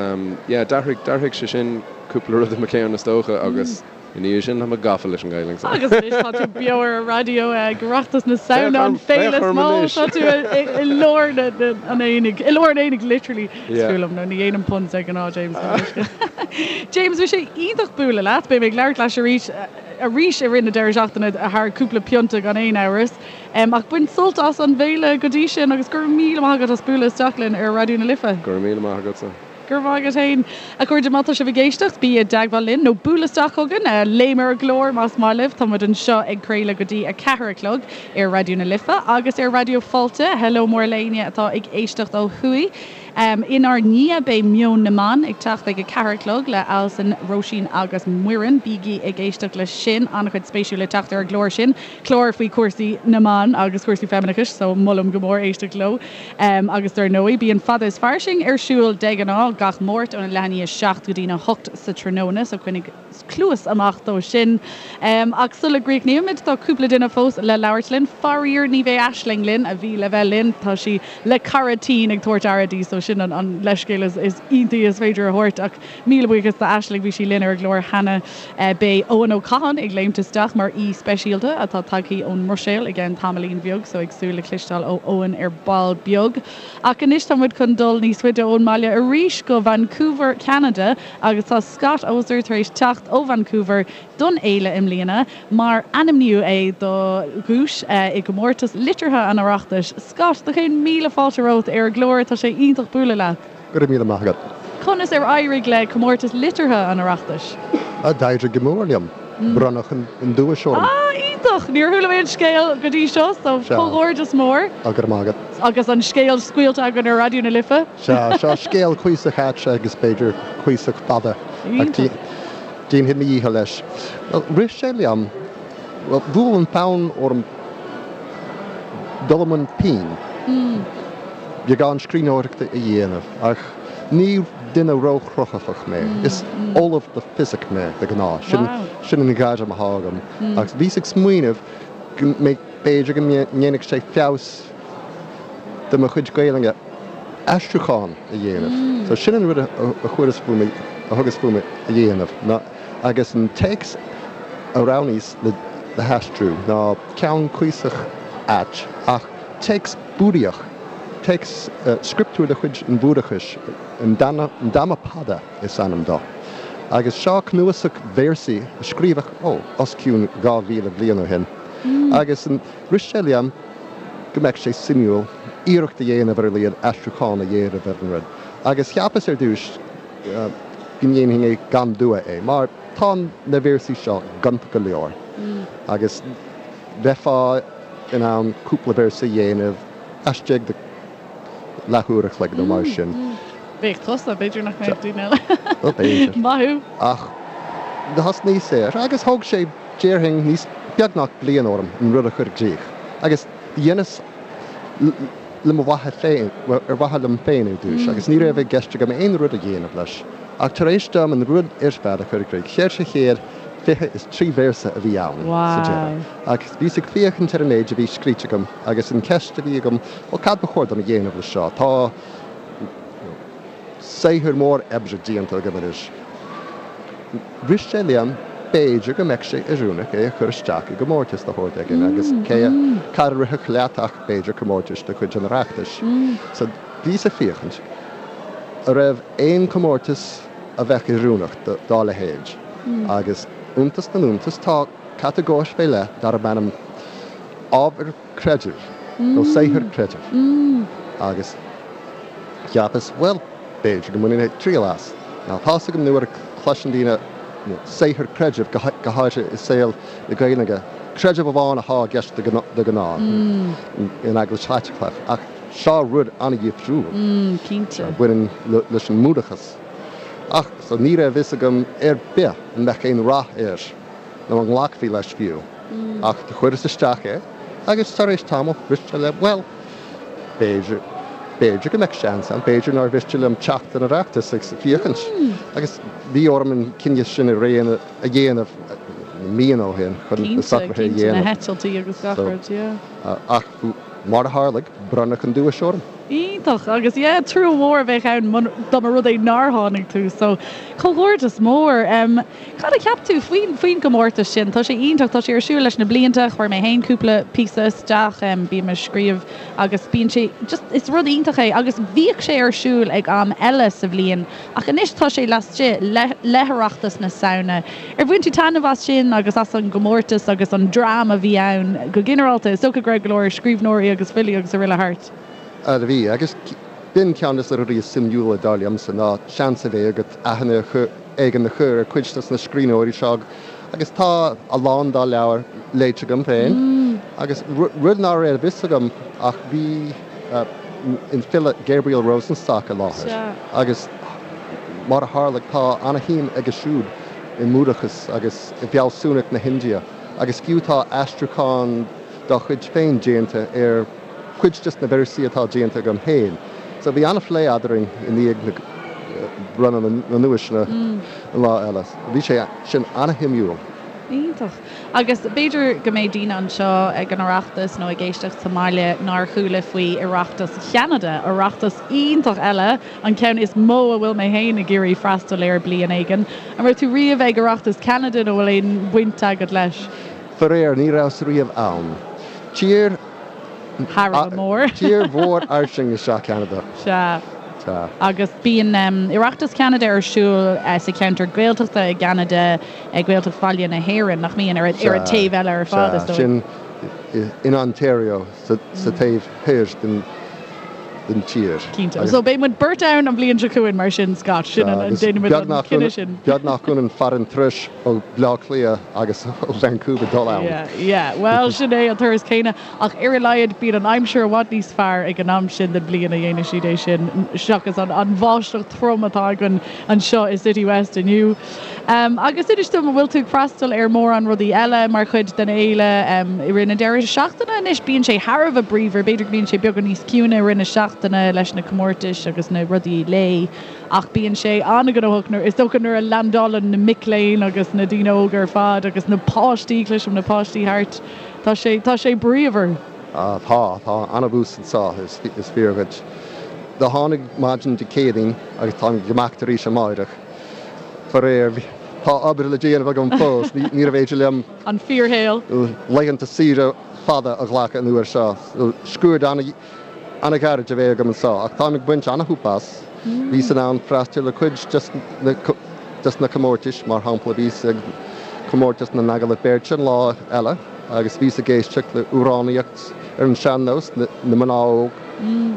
yeah d'athraigh, d'athraigh sé sin cúpla rud i mo cheann is dócha agus. I ndiaidh sin, tá mé gafa leis an Ghaelainn so. Agus anois tá tú beo ar an raidió ag Oireachtas na Samhna, an féile is mó, tá tú i lár an aonaigh, i lár an aonaigh literally, is fuath liom, nó ní dhéanaim puns de ghnáth James. James, bhí sé iontach bualadh leat, beidh mé ag labhairt leat arís, arís i rith na deireadh seachtaine thar cúpla pionta gan aon amhras. Ach bain sult as an bhféile go dtí sin agus go raibh míle maith agat as bualadh isteach linn ar Raidió na Life. Go raibh míle maith agatsa. Go raibh maith agat féin. A chairde, má tá sibh ag éisteacht, bí i dteagmháil linn nó buail isteach chugainn, léim ar an gclár más maith libh. Tá muid anseo ag craoladh go dtí 4 a chlog ar Raidió na Life agus ar Raidió Fáilte. Hello mór le éinne atá ag éisteacht ó thuaidh. Inár ndiaidh beidh Meon na mBan ag teacht ag 4 a chlog le Alison, Róisín agus Muireann. Bígí ag éisteacht leis sin, an-chuid spéisiúil le teacht ar an gclár sin. Clár faoi chúrsaí na mban agus cúrsaí feimineachais so molaim go mór éisteacht leo. Agus dar ndóigh, bíonn Fada is Fairsing ar siúl de ghnáth gach Máirt óna leath i ndiaidh a 7 go dtína 8 sa tráthnóna, so coinnigh cluas amach dó sin. Ach sula gcríochnaímid, tá cúpla duine fós le labhairt linn. Faraor, ní bheidh Aisling linn, a bhí le bheith linn. Tá sí le cara tinn ag tabhairt aire di, so sin an leithscéal is iontaí is féidir a thabhairt. Ach míle buíochas d'Aisling, bhí sí linn ar an gclár cheana. Beidh Eoin Ó Catháin ag léimt isteach mar aoi speisialta atá tagthaí ón mBruiséil i gceann tamaillín bheag, so ag súil le cloisteáil ó Eoin ar ball beag. Ach anois tá muid chun dul níos faide ón mbaile arís go Vancouver, Ceanada agus tá Scott Oser tar éis teacht ó Vancouver don fhéile i mbliana mar ainmníodh é do dhuais i gcomórtas liteartha an Oireachtais. Scott, do chéad míle fáilte romhat ar an gclár, tá sé iontach bualadh leat. Go raibh míle maith agat. Conas ar éirigh le Comórtas Liteartha an Oireachtais? D'éirigh go mór liom. Bronnadh an duais orm. Ah, iontach! Níor chuala mé an scéal go dtí seo, so comhghairdeas mór. Go raibh maith agat. Agus an scéal scaoilte againn ar Raidió na Life. Sea, seo scéal cuíosach ait agus b'fhéidir cuíosach fada. Iontach. Déanfaidh mo dhícheall leis. Bhuel, rith sé liom. Bhuel, bhuail an fonn orm dul i mbun pinn, beagán scríbhneoireachta a dhéanamh, ach ní duine róchruthaitheach mé. Is ollamh le fisic mé, de ghnáth. Sin, sin an ghairm atá agam. Ach bhíos ag smaoineamh go mbeidh, b'fhéidir go ndéanfadh sé feabhas do mo chuid Gaelainne aistriúchán a dhéanamh. So sin an rud a chuireas fúm, a thugas fúm a dhéanamh, ná, agus an téacs a roghnaíos le haistriú ná ceann cuíosach ait ach téacs Búdaíoch, téacs scrioptúr de chuid an Bhúdachais, an Dhammapada is ainm dó. Agus seo cnuasach véarsaí a scríobhadh, ó, os cionn 2,000 bliain ó shin. Agus rith sé liom go mbeadh sé suimiúil iarracht a dhéanamh ar a laghad aistriúchán a dhéanamh ar an rud. Agus cheapas ar dtús go ndéanfainn é gan dua é, mar tá na véarsaí seo gonta go leor agus bheifeá in ann cúpla véarsa a dhéanamh laistigh de leathuair a chloig nó mar sin. Bheadh tusa, b'fhéidir nach mbeadh daoine eile. Bhuel, b'fhéidir. Maith thú. Ach thosnaíos air agus thóg sé, déarfainn, níos, beagnach bliain orm an rud a chur i gcrích. Agus dheineas le mo mhaithe féin, bhuel, ar mhaithe liom féin ar dtús, agus ní raibh i gceist agam aon rud a dhéanamh leis. Ach tar éis dom an rud ar fad a chur i gcrích, 423 véarsa a bhí ann sa deireadh. Agus bhíos ag féachaint ar an méid a bhí scríte agam agus an cheist a bhí agam, bhuel, cad ba chóir dom a dhéanamh leis seo? Tá saothar mór oibre déanta agam anois. Rith sé liom, b'fhéidir go mbeadh sé oiriúnach é a chur isteach i gcomórtas de shórt éigin agus cé a, cad a rithfeadh leat ach b'fhéidir comórtas de chuid an Oireachtais. So bhíos ag féachaint an raibh aon chomórtas a bheadh oiriúnach dá leithéid agus iontas na n-iontas tá catagóir fé leith darb ainm ábhar creidimh nó saothar creidimh agus cheapas, bhuel, b'fhéidir go mbainfinn triail as. Now tá's agam nuair a chloiseann daoine saothar creidimh, go háirithe i saol na Gaeilge, creideamh amháin atá i gceist de ghnáth in Eaglais Chaitliceach, ach seo rud an-dhifriúil a bhaineann leis an mBúdachas. Ach so ní raibh fhios agam ar bith an mbeadh aon rath air nó an nglacfaí leis fiú. Ach do chuireas isteach é agus tar éis tamaill rith sé liom, bhuel, b'fhéidir, b'fhéidir go mbeadh seans ann, b'fhéidir nár mhiste liom teacht don Oireachtas agus féachaint. Agus bhí orm an cinneadh sin a dhéanamh míonna ó shin chun na socruithe a Cinnte, dhéanamh. na heitiltí agus gach rud, yeah. Ach mar a tharlaigh, bronnadh an duais orm. Iontach! Agus yeah, trua mhór a bheadh ann dá mba rud é nár tháinig tú, so comhghairdeas mór! Cad a cheap tú faoin faoin gcomórtas sin? Tá sé iontach, tá sé ar siúl leis na blianta, chuir mé féin cúpla píosa isteach, bím ag scríobh agus bíonn sé just, is rud iontach é agus bhíodh sé ar siúl ag am eile sa bhliain ach anois tá sé laistigh le le hOireachtas na Samhna. Ar bhain tú taitneamh as sin agus as an gcomórtas agus an dream a bhí ann go ginearálta? Is dócha go raibh go leor scríbhneoirí agus filí agus araile thart. Bhí, agus b'in ceann de na rudaí is suimiúla dar liomsa ná seans a bheith agat aithne éigin a chur ar chuid de na scríbhneoirí seo agus tá a lán dá leabhair léite agam féin agus rud ná raibh a fhios agam ach bhí an file Gabriel Rosenstock i láthair agus mar a tharlaigh tá ana-shuim aige siúd i mBúdachas agus i bhfealsúnacht na hIndia agus fiú tá aistriúchán dá chuid féin déanta ar cuid des na véarsaí atá déanta agam féin. So bhí an-phlé eadrainn i ndiaidh na bronnadh na nduaiseanna an lá eile. Bhí sé sin an-shuimiúil. Iontach. Agus b'fhéidir go mbeidh daoine anseo ag an Oireachtas nó ag éisteacht sa mbaile nár chuala faoi Oireachtas Cheanada, Oireachtas iontach eile, an ceann is mó a bhfuil mé féin ag iarraidh freastal air bliain éigin. An raibh tú riamh ag Oireachtas Cheanada nó bhfuil aon bhaint agat leis? Faraor, ní rabhas riamh ann. Tír Thar a bheith mór. Tír mhór fhairsing is ea Ceanada. Sea. Sea. Agus bíonn Oireachtas Cheanada ar siúl sa cheantar Gaeltachta i gCeanada, Gaeltacht Bhaile na hÉireann, nach mbíonn? Ar an taobh eile ar fad, is Sea, dóigh. sin in Ontario, sa taobh thoir den. den tír. Cinnte. So beidh muid beirt ann an bhliain seo chugainn mar sin, Scott. Sin an, déanfaidh muid an cinneadh sin. Beagnach ionann fad an turais ó Bhaile Átha Cliath agus ó Vancouver dul ann. Yeah, yeah. Bhuel, sin é an turas céanna ach ar a laghad bíonn an aimsir i bhfad níos fearr ag an am sin den bhliain a dhéanfaidh siad é sin seachas an bháisteach trom atá againn anseo i City West inniu. Agus inis dom, an bhfuil tú ag freastal ar mórán rudaí eile mar chuid den fhéile i rith na deireadh seachtaine? Anois bíonn sé thar a bheith bríomhar, b'fhéidir go mbíonn sé beagán níos ciúine i rith na seachtaine leis na comórtais agus na rudaí lae ach bíonn sé an-ghnóthach nuair, is dócha nuair a leaindeálann na mic léinn agus na daoine óga ar fad agus na páistí, cloisim na páistí thart, tá sé, tá sé bríomhar. Tá, tá an-bhús anseo, is fíor dhuit. Do tháinig maidin Dé Céadaoin agus táim ag imeacht arís amáireach. Faraor, tá obair le déanamh agam fós, níorbh fhéidir liom. An fíorshaol. Laethanta saoire fada a ghlacadh an uair seo. Scuaid an-ghairid a bheidh agam anseo, ach táim ag baint an-shúp as. Bhíos in ann freastal ar cuid des na comórtais, mar shampla bhíos ag comórtas na n-agallamh beirte an lá eile agus bhíos ag éisteacht le amhránaíocht ar an sean-nós, na mná óg,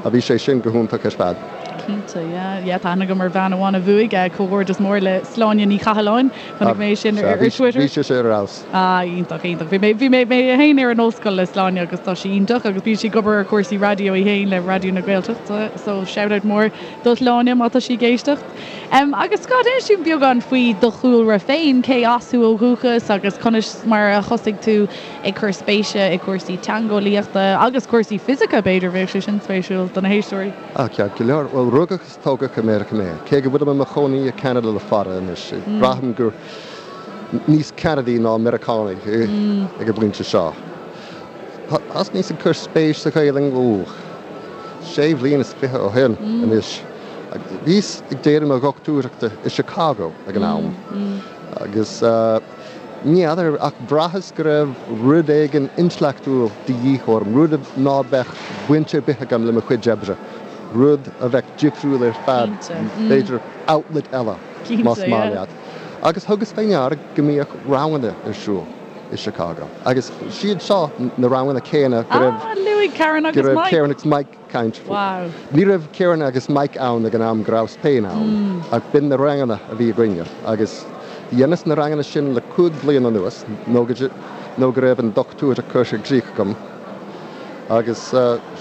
a bhí sé sin go hiontach ar fad. Cinnte, yeah. Yeah, tá aithne agam ar bhean amháin a bhuaigh, comhghairdeas mór le Sláine Ní Chathalláin. Chonaic mé sin ar Twitter. Bhí sise ar fheabhas. Ah, iontach, iontach. Bhí mé, bhí mé, mé féin ar an ollscoil le Sláine agus tá sí iontach agus bíonn sí ag obair ar chúrsaí raidió í féin le Raidió na Gaeltachta, so shout out mór do Shláine má tá sí ag éisteacht. Em, agus Scott, inis dúinn beagán faoi do chúlra féin, cé as thú ó dhúchas agus conas mar a thosaigh tú ag cur spéise i gcúrsaí teangeolaíochta agus cúrsaí fisice, b'fhéidir, bheadh sé sin spéisiúil do na héisteoirí. Ah, ceart go leor. Bhuel, rugadh is tógadh i Meiriceá mé. Cé go bhfuilim i mo chónaí i Ceanada le fada anois, braithim gur níos Ceanadaí ná Meiriceánaigh ag an bpointe seo. Thosnaíos ag cur spéis sa Ghaelainn, ó, sé bhliain is fiche ó shin anois. Bhíos ag déanamh mo dhochtúireachta i Chicago ag an am agus, Ní fheadar, ach bhraitheas go raibh rud éigin intleachtúil de dhíth orm, rud ná beadh baint ar bith agam le mo chuid oibre, rud a bheadh difriúil ar fad, b'fhéidir outlet eile, más maith leat. Agus thugas fé ndeara go mbíodh ranganna ar siúl i Chicago, agus siad seo na ranganna céanna go raibh Karen agus Mike caint faoi. Ní raibh Karen agus Mike ann ag an am go rabhas féin ann, ach b'in na ranganna a bhí againne agus dheineas na ranganna sin le 5 bliana anuas nó go nó go raibh an dochtúireacht curtha i gcrích agam agus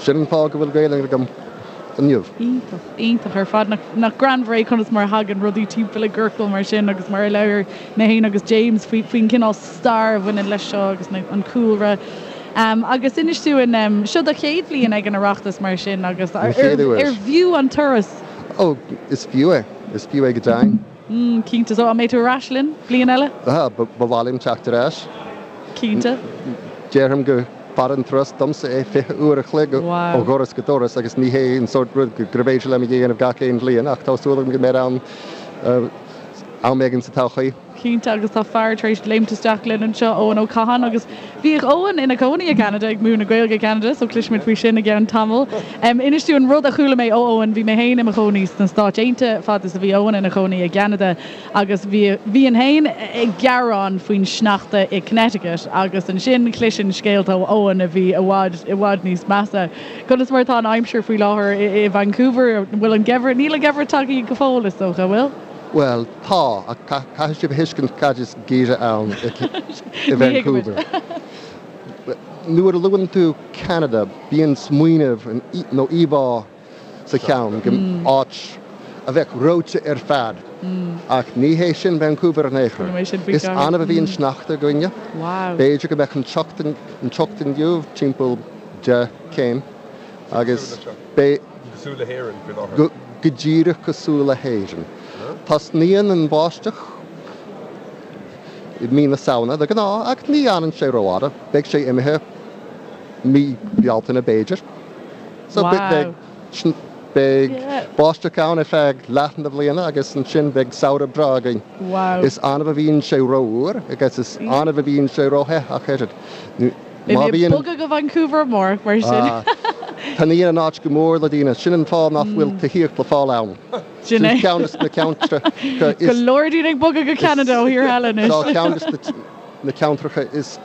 sin an fáth go bhfuil Gaelainn agam inniu. Iontach, iontach ar fad. Nach greannmhar é conas mar a thagann rudaí timpeall i gciorcal mar sin agus mar a labhair mé féin agus James faoi faoin gcineál stair a bhaineann leis seo agus an cúlra. Agus inis dúinn, seo do chéad bhliain ag an Oireachtas mar sin agus An chéad uair. ar bhfiú an turas? Ó, is fiú é. Is fiú é go deimhin. Cinnte. So, an mbeidh tú ar ais linn bliain eile? Ba mhaith liom teacht ar ais. Cinnte. Déarfainn gur fada an turas domsa é 20 uair a chloig ó dhoras go doras agus ní hé an sórt rud gurbh fhéidir liom a dhéanamh gach aon bhliain ach tá súil agam go mbeidh ann am éigin sa todhchaí. Cinnte, agus tá fear tar éis léimt isteach linn anseo, Eoin Ó Catháin, agus bhíodh Eoin ina chónaí i gCeanada, ag múineadh Gaeilge i gCeanada, so cloisfimid faoi sin i gceann tamaill. Inis dúinn rud a chuala mé ó Eoin, bhí mé féin i mo chónaí sna Stáit Aontaithe fad is a bhí Eoin ina chónaí i gCeanada, agus bhí, bhínn féin ag gearán faoin sneachta i Connecticut, agus ansin chloisinn scéalta ó Eoin a bhí i bhfad, i bhfad níos measa. Conas mar atá an aimsir faoi láthair i Vancouver? An bhfuil an geimhreadh, níl an geimhreadh tagtha go fóill, is dócha, an bhfuil? Bhuel, tá, ach caithfidh sibh a thuiscint cad is geimhreadh ann i Vancouver. Nuair a luann tú Ceanada, bíonn smaoineamh nó íomhá sa cheann go áit a bheadh reoite ar fad, ach ní hé sin Vancouver in aon chor. Is annamh a bhíonn sneachta againne. B'fhéidir go mbeadh an teocht inniu timpeall 10 céim agus beidh. Cosúil le hÉirinn faoi láthair. Go díreach cosúil le hÉirinn. Tosnaíonn an bháisteach i mí na Samhna de ghnáth ach ní fhanann sé rófhada. Beidh sé imithe mí Bealtaine b'fhéidir. So beidh beidh báisteach ann ar feadh leath na bliana agus ansin beidh samhradh breá againn. Is annamh a bhíonn sé rófhuar agus is annamh a bhíonn sé róthe ach oiread. Beidh mé ag bogadh go Vancouver amárach, mar sin. Taitníonn an áit go mór le daoine. Sin an fáth nach bhfuil tithíocht le fáil ann. Sin é. Ceann de na ceantracha is. Go leor daoine ag bogadh go Ceanada ó thíortha eile anois. Seo ceann de na ceantracha is.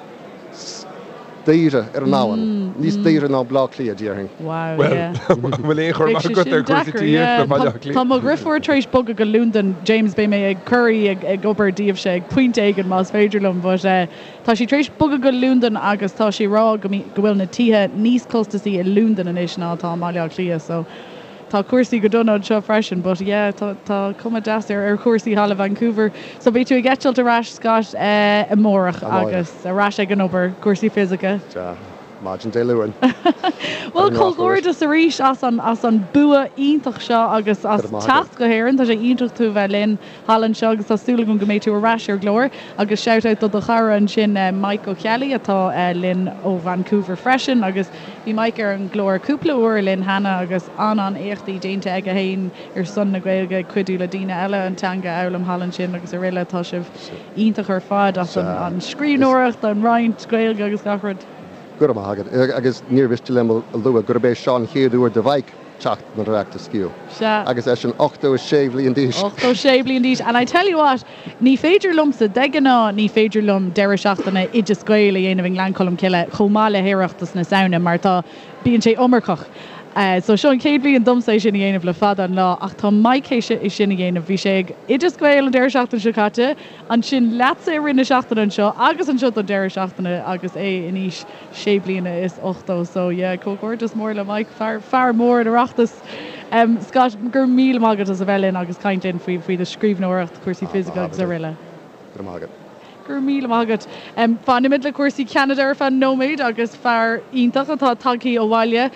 daoire ar an domhan, níos daoire ná Baile Átha Cliath, déarfainn. Wow, Bhuel, yeah. an bhfuil aon chur Bheadh amach sé agat sin ar chúrsaí deacair, tithíochta yeah. i mBaile Átha Cliath? Tá mo dheirfiúr tar éis bogadh go Londain, James, beidh mé ag cur í ag ag obair daoibhse ag pointe éigin más féidir liom, but eh, tá sí tar éis bogadh go Londain agus tá sí ag rá go go bhfuil na tithe níos costasaí i Londain anois ná atá i mBaile Átha Cliath, so tá cúrsaí go dona anseo freisin, but yeah, tá tá cuma deas ar ar chúrsaí thall i Vancouver. So beidh tú ag eitilt ar ais, Scott, eh, amárach Amárach. agus ar ais ag an obair, cúrsaí fisice. Sea. Maidin Dé Luain. Bhuel, comhghairdeas arís as an as an bua iontach seo agus as teacht go hÉirinn. Tá sé iontach tú a bheith linn thall anseo agus tá súil agam go mbeidh tú ar ais ar an gclár. Agus shout out do do chara ansin Mike Ó Ceallaigh atá linn ó Vancouver freisin agus bhí Mike ar an gclár cúpla uair linn cheana agus an-an-éachtaí déanta aige féin ar son na Gaeilge ag cuidiú le daoine eile an teanga a fhoghlaim thall ansin agus araile. Tá sibh iontach ar fad as an scríbhneoireacht, an roinnt Gaeilge agus gach rud. Go raibh maith agat. Agus níor mhiste liom a lua gurb é seo an chéad uair do Mhike teacht don Oireachtas fiú. Sea. Agus eisean 86 bhliain d'aois. 86 bliain d'aois. And I tell you what, ní féidir liomsa, de ghnáth ní féidir liom deireadh seachtaine Oideas Gael a dhéanamh i nGleann Cholm Cille chomh maith le hOireachtas na Samhna mar tá, bíonn sé iomarcach. So seo an chéad bhliain domsa é sin a dhéanamh le fada an lá ach tá Mike théis é sin a dhéanamh. Bhí sé ag Oideas Gael an deireadh seachtaine seo caite, ansin leatsa i rith na seachtaine anseo agus anseo don deireadh seachtaine agus é in aois sé bliana is 80. So yeah, comhghairdeas mór le Mike, fear, fear mór an Oireachtais. Scott, go raibh míle maith agat as a bheith linn agus caint linn faoi, faoi do scríbhneoireacht, cúrsaí fisice agus araile. Go raibh maith agat. Go raibh míle maith agat. Fanfaimid le cúrsaí Cheanada ar feadh nóiméid agus fear iontach atá tagthaí abhaile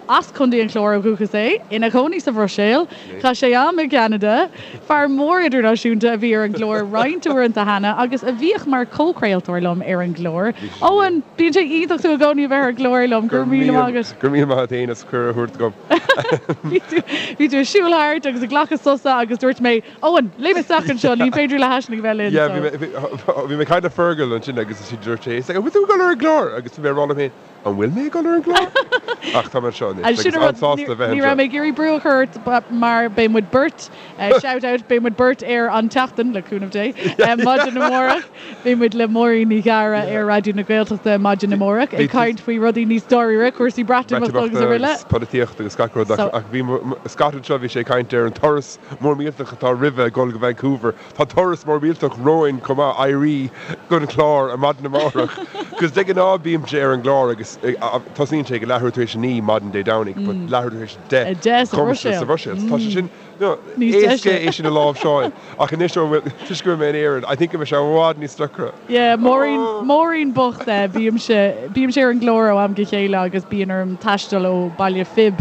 as Contae an Chláir ó dhúchas é, ina chónaí sa Bhruiséil. Chaith sé am i gCeanada. Fear mór idirnáisiúnta a bhí ar an gclár roinnt uaireanta cheana agus a bhíodh mar chomhchraoltóir liom ar an gclár. Eoin, bíonn sé iontach tú i gcónaí a bheith ar an gclár liom. Go raibh míle maith agat. Go raibh míle maith agat féin as cuireadh a thabhairt dom. Bhí tú ag siúl thart agus ag glacadh sosa agus dúirt mé, Eoin, léim isteach anseo, ní féidir le hAisling a bheith linn. Yeah, bhí mé, bhí mé ag caint le Fergal ansin agus dúirt sé, he's like, an bhfuil tú ag dul ar an gclár? Agus bhí mé ag rá liom féin, an bhfuil mé ag dul ar an gclár? Ach tá mé anseo anois agus sin an rud, an-sásta a bheith ní raibh mé ag iarraidh brú a chur ort mar beidh muid beirt, shout out, beidh muid beirt ar an tseachtain, le cúnamh Dé, maidin amárach. Beidh muid le Máirín Ní Ghadhra ar Raidió na Gaeltachta maidin amárach ag caint faoi rudaí níos dáiríre, cúrsaí Breatimeachta agus araile. Agus polaitíocht agus gach rud ach bhí Scott anseo, bhí sé ag caint ar an turas mór millteach atá roimhe ag dul go Vancouver. Tá turas mór millteach romhainn chomh maith, éirí don chlár ar maidin amárach. Cos de ghnáth bímse ar an gclár agus tosaíonn sé ag leathuair tar éis a 9 maidin Dé Domhnaigh but leathuair tar éis a 10 sa Bhruiséil. Tá sé sin Éasca é sin a láimhseáil ach anois ó bhfuil, toisc go bhfuil mé in Éirinn, I think go mbeidh sé i bhfad níos deacra. Yeah, Máirín, Máirín bocht, bímse, bímse ar an gclár ó am go chéile agus bíonn orm taisteal ó Baile Phib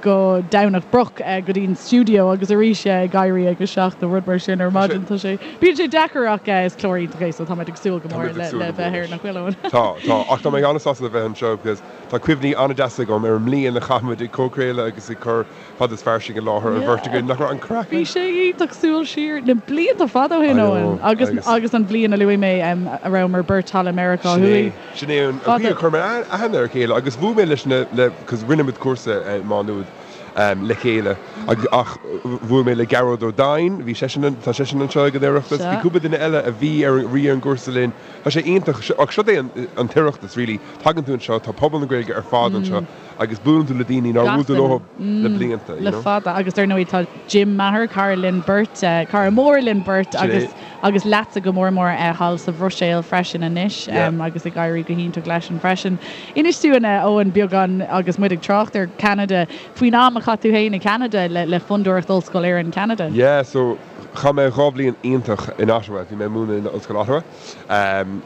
go Domhnach Broc go dtí an stiúideo agus arís ag éirí ag a 7 nó rud mar sin ar maidin. Tá sé, bíonn sé deacair ach is clár iontach é so táimid ag súil go mór le le bheith air, nach bhfuil Eoin? Tá, tá, ach tá mé an-sásta le bheith anseo because tá cuimhní an-deasa agam ar an mbliain a chaith muid ag comhchraoladh agus ag cur Fada is Fairsing i láthair, an bheirt againn, nach raibh an craic Bhí sé iontach súil siar na blianta fada ó shin, Eoin, agus agus an bhliain a luaigh mé a rabhamar beirt thall i Meiriceá Thuaidh. Sin é an chaoi a chuir mé aithne ar a chéile agus bhuail mé leis na, le, cos rinne muid cúrsa i Má Nuad le chéile agus ach bhuail mé le Gearóid Ó Doinn, bhí seisean, tá seisean anseo ag an Oireachtas, bhí cúpla duine eile a bhí ar an, bhí ar an gcúrsa linn. Tá sé iontach, ach seo é an tOireachtas really, tagann tú anseo, tá pobal na Gaeilge ar fad anseo. Agus buaileann tú le daoine nár bhuail tú leo le blianta, you Le know. fada. Agus dar ndóigh tá Jim Maher, cara linn beirt, cara mór linn beirt agus agus leatsa go mór mór thall sa Bhruiséil freisin anois agus ag éirí go hiontach leisean freisin. Inis dúinn, a Eoin, beagán agus muid ag trácht ar Ceanada, faoin am a chaith tú féin i gCeanada le Fondúireacht Ollscoil Éireann Ceanada. Yeah, so chaith mé 2 bhliain iontach in Ottawa, bhí mé ag múineadh in Ollscoil Ottawa.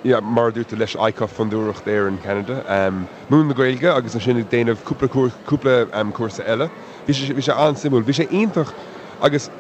Yeah, mar a dúirt tú leis ICUF Fondúireacht Éireann Ceanada. Múineadh na Gaeilge agus ansin ag déanamh cúpla cúpla cúrsa eile. Bhí sé bhí sé an-suimiúil. Bhí sé iontach agus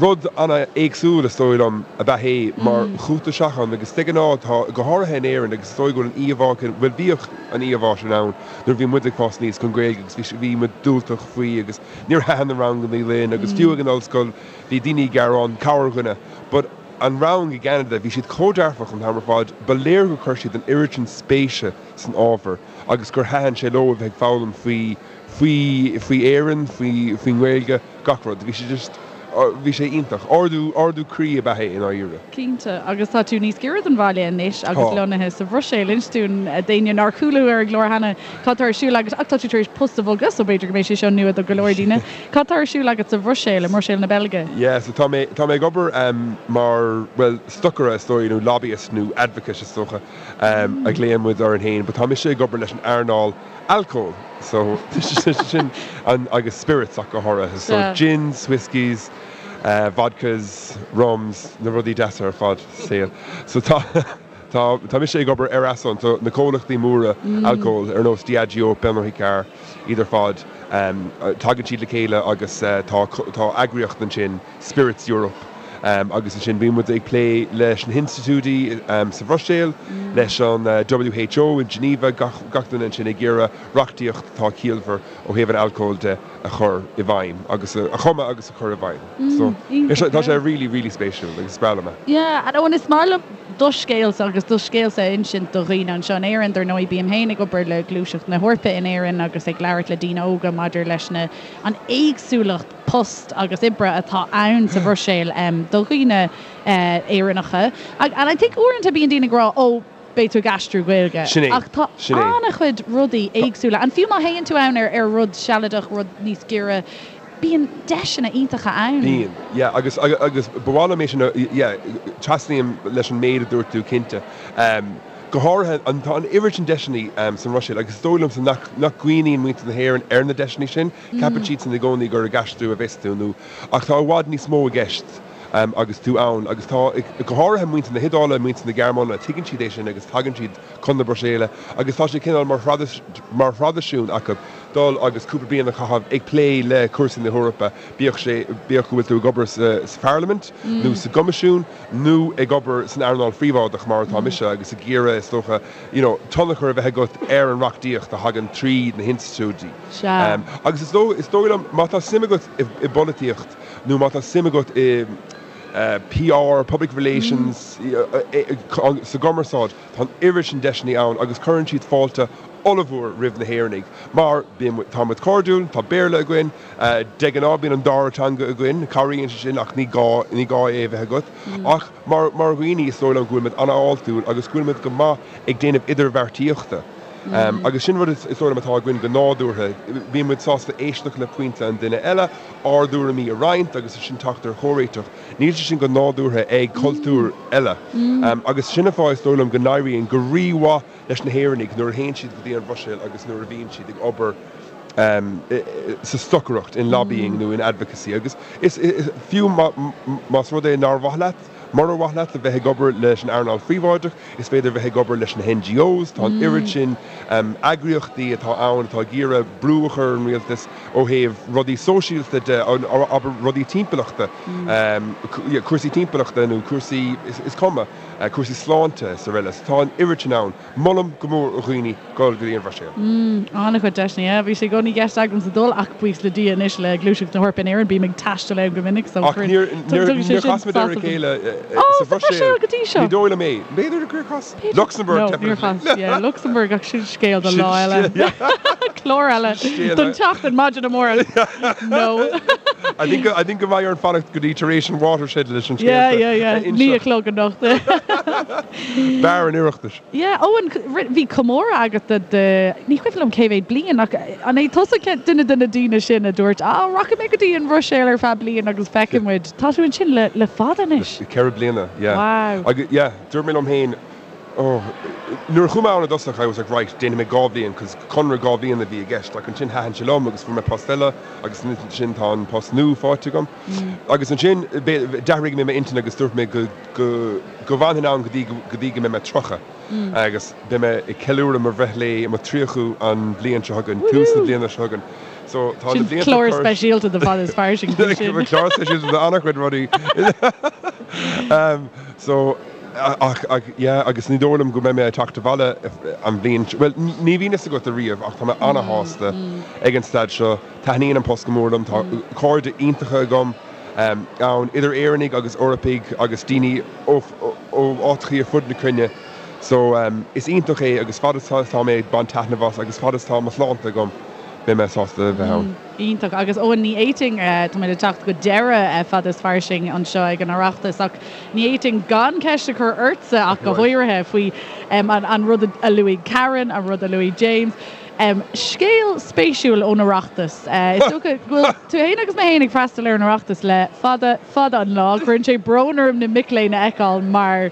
rud an-éagsúil is dóigh liom ab ea é mar chuaigh tú isteach ann agus de ghnáth tá, go háirithe in Éirinn agus is dóigh go bhfuil an íomhá bhuel bhíodh an íomhá sin ann nuair a bhí muid ag fás aníos don Ghaeilge agus bhí bhí muid diúltach faoi agus níor thaitin na ranganna linn agus fiú ag an ollscoil bhí daoine ag gearán, corrdhuine but an rang i gCeanada, bhí siad chomh dearfach an t-am ar fad, ba léir gur chuir siad an oiread sin spéise san ábhar agus gur thaitin sé leo a bheith ag foghlaim faoi, faoi, faoi Éirinn, faoi, faoin nGaeilge, gach rud. Bhí sé just bhí sé iontach. Ardú, ardú croí ab ea é i ndáiríre. Cinnte. Agus tá tú níos giorra don bhaile anois agus lonnaithe sa Bhruiséil. Inis dúinn, d'éinne nár chuala thú ar an gclár cheana, cad tá ar siúl agat, ach tá tú tar éis post a bhogadh, so b'fhéidir go mbeidh sé seo nua do go leor daoine. Cad tá ar siúl agat sa Bhruiséil, i mBruiséil na Beilge? Yeah, so tá mé, tá mé ag obair mar, bhuel, stocaire is dóigh, nó lobbyist nó advocate is dócha a ghlaonn muid orainn féin, but tá mise ag obair leis an earnáil alcóil, so sin an, agus spirits ach go háirithe, so gins, whiskies, vodkas, rums, na rudaí deasa ar fad sa saol. So tá, tá, tá mise ag obair ar a son, so na comhlachtaí móra alcóil ar nós Diageo, Pernod Ricard, iad ar fad, tagann siad le chéile agus tá, tá eagraíocht ansin, Spirits Europe, agus ansin bíonn muid ag plé leis na hinstitiúidí sa Bhruiséil, leis an WHO in Geneva, gach, gach duine ansin ag iarraidh reachtaíocht atá ciallmhar ó thaobh an alcóil de a chur i bhfeidhm agus a chumadh agus a chur i bhfeidhm. So, tá sé really, really spéisiúil agus is breá liom é. Yeah, and oh, is maith liom do scéalsa agus do scéalsa a insint do dhaoine anseo in Éirinn. Dar ndóigh, bím féin ag obair le Gluaiseacht na hEorpa in Éirinn agus ag labhairt le daoine óga maidir leis na, an éagsúlacht post agus oibre atá ann sa Bhruiséil do dhaoine Éireannacha. And I think uaireanta bíonn daoine ag rá, oh, beidh tú ag aistriú Gaeilge. Sin é. Ach tá Sin é. an-chuid rudaí éagsúla. And fiú má théann tú ann ar ar rud sealadach, rud níos giorra, bíonn deiseanna iontacha ann. Bíonn, yeah. Agus, agus ba mhaith liom é sin a, yeah, trasnaím leis an méid a dúirt tú, cinnte. Go háirithe, an, tá an oiread sin deiseanna san Bhruiséil agus is dóigh liomsa nach, nach gcuimhníonn muintir na hÉireann ar na deiseanna sin. Ceapann siadsan i gcónaí gur ag aistriú a bheas tú nó, ach tá i bhfad níos mó i gceist. agus tú ann agus tá, go háirithe muintir na hIodáile, muintir na Gearmáine, tuigeann siad é sin agus tagann siad chun na Bruiséile agus tá sé cineál mar mar thraidisiún acu dul agus cúpla bliain a chaitheamh ag plé le cúrsaí na hEorpa, bíodh sé, bíodh go bhfuil tú ag obair sa sa Pharlaimint nó sa gCoimisiún nó ag obair san earnáil phríobháideach mar atá mise agus ag iarraidh, is dócha, you know, tionchar a bheith agat ar an reachtaíocht a thagann trí na hinstitiúidí. Sea. Agus is dóigh, is dóigh liom, má tá suim agat i i bpolaitíocht, nó má tá suim agat i PR, public relations, sa gcumarsáid, tá an oiread sin deiseanna ann agus cuireann siad fáilte ollmhór roimh na hÉireannaigh mar bíonn muid, tá muid cairdiúil, tá Béarla againn, de ghnáth bíonn an dara teanga againn, cabhraíonn sé sin ach ní gá, ní gá é a bheith agat. Ach mar, mar dhaoine is dóigh liom go bhfuil muid an-fháiltiúil agus go bhfuil muid go maith ag déanamh idirbheartaíochta. Agus sin rud is dóigh liom atá againn go nádúrtha, bíonn muid sásta éisteacht le pointe an duine eile, ár dtuairimí a roinnt agus ansin teacht ar chomhréiteach. Níl sé sin go nádúrtha ag cultúir eile. Agus sin an fáth is dóigh liom go n-éiríonn go rí-mhaith leis na hÉireannaigh nuair a théann siad go dtí an Bhruiséil agus nuair a bhíonn siad ag obair sa stocaireacht, in lobbying nó in advocacy. Agus is fiú más rud é nár mhaith leat, Murar mhaith leat a bheith ag obair leis an earnáil phríobháideach, is féidir a bheith ag obair leis na NGOs, tá an oiread sin eagraíochtaí atá ann atá ag iarraidh brú a chur ar an rialtas ó thaobh rudaí sóisialta de, abair rudaí timpeallachta, cúrsaí timpeallachta nó cúrsaí, is cuma, cúrsaí sláinte is araile. So tá an oiread sin ann. Molaim go mór do dhaoine dul go dtí an Bhruiséil. An-chuid deiseanna, yeah. Bhí sé i gcónaí i gceist agamsa dul ach buíochas le Dia anois le Gluaiseacht na hEorpa in Éirinn bím ag taisteal ann go minic so Ach níor tugann sé sin chas muid ar a chéile sa Bhruiséil go dtí seo. Ní dóigh liom é. B'fhéidir gur chas. Luxembourg, No, níor chas. Yeah, Luxembourg ach sin scéal do lá eile. Clár eile don tseachtain maidin amárach. No. I think I think go mbeidh orainn fanacht go dtí tar éis an watershed leis an scéal Yeah, yeah, yeah. 9 a chlog anocht. Beár an Oireachtais. Yeah, Eoin, bhí comóradh agat do, do, ní cuimhin liom cé mhéad bliain ach an é tusa duine de na daoine sin a dúirt, ah, rachaidh mé go dtí an Bhruiséil ar feadh bliain agus feicfidh muid. Tá tú ansin le, le fada anois. Le 4 bliana, yeah. Wow. Agus, yeah, dúirt mé liom féin, oh, nuair a chuaigh mé ann i dtosach, I was like, right, déanfaidh mé 2 bhliain, cos conradh 2 bhliain a bhí i gceist, ach ansin thaitin sé liom agus fuair mé post eile agus ansin tá an post nua faighte agam. Agus ansin, d'athraigh mé m'intinn agus dúirt mé go, go, go bhfanfainn ann go dtí, go dtí go mbeidh mé 30 agus beidh mé ag ceiliúradh mo bhreithlae, mo 30ú an bhliain seo chugainn, tús na bliana seo chugainn. So tá na Sin blianta clár cur. speisialta do Fada is Fairsing faoi sin. Clár speisialta do an-chuid rudaí. So, ach, ach, yeah, agus ní dóigh liom go mbeidh mé ag teacht abhaile an bhliain, bhuel, ní bhíonn fhios agat ariamh ach tá mé an-shásta ag an staid seo. Taitníonn an post go mór liom, tá cairde iontacha agam ann, idir Éireannaigh agus Eorpaigh agus daoine ó áiteachaí ar fud na cruinne. So, is iontach é agus fad is tá mé ag baint taitneamh as agus fad is tá mo shláinte agam, beidh mé sásta a bheith ann. Iontach. Agus Eoin, ní fhéadfainn, táimid ag teacht go deireadh Fada is Fairsing anseo ag an Oireachtas ach ní fhéadfainn gan ceist a chur ortsa ach go háirithe faoi an rud a luaigh Karen, an rud a luaigh James. Scéal spéisiúil ón Oireachtas. Is dócha go bhfuil tú féin agus mé féin ag freastal ar an Oireachtas le fada, fada an lá. Cuireann sé brón orm na mic léinn a fheiceáil mar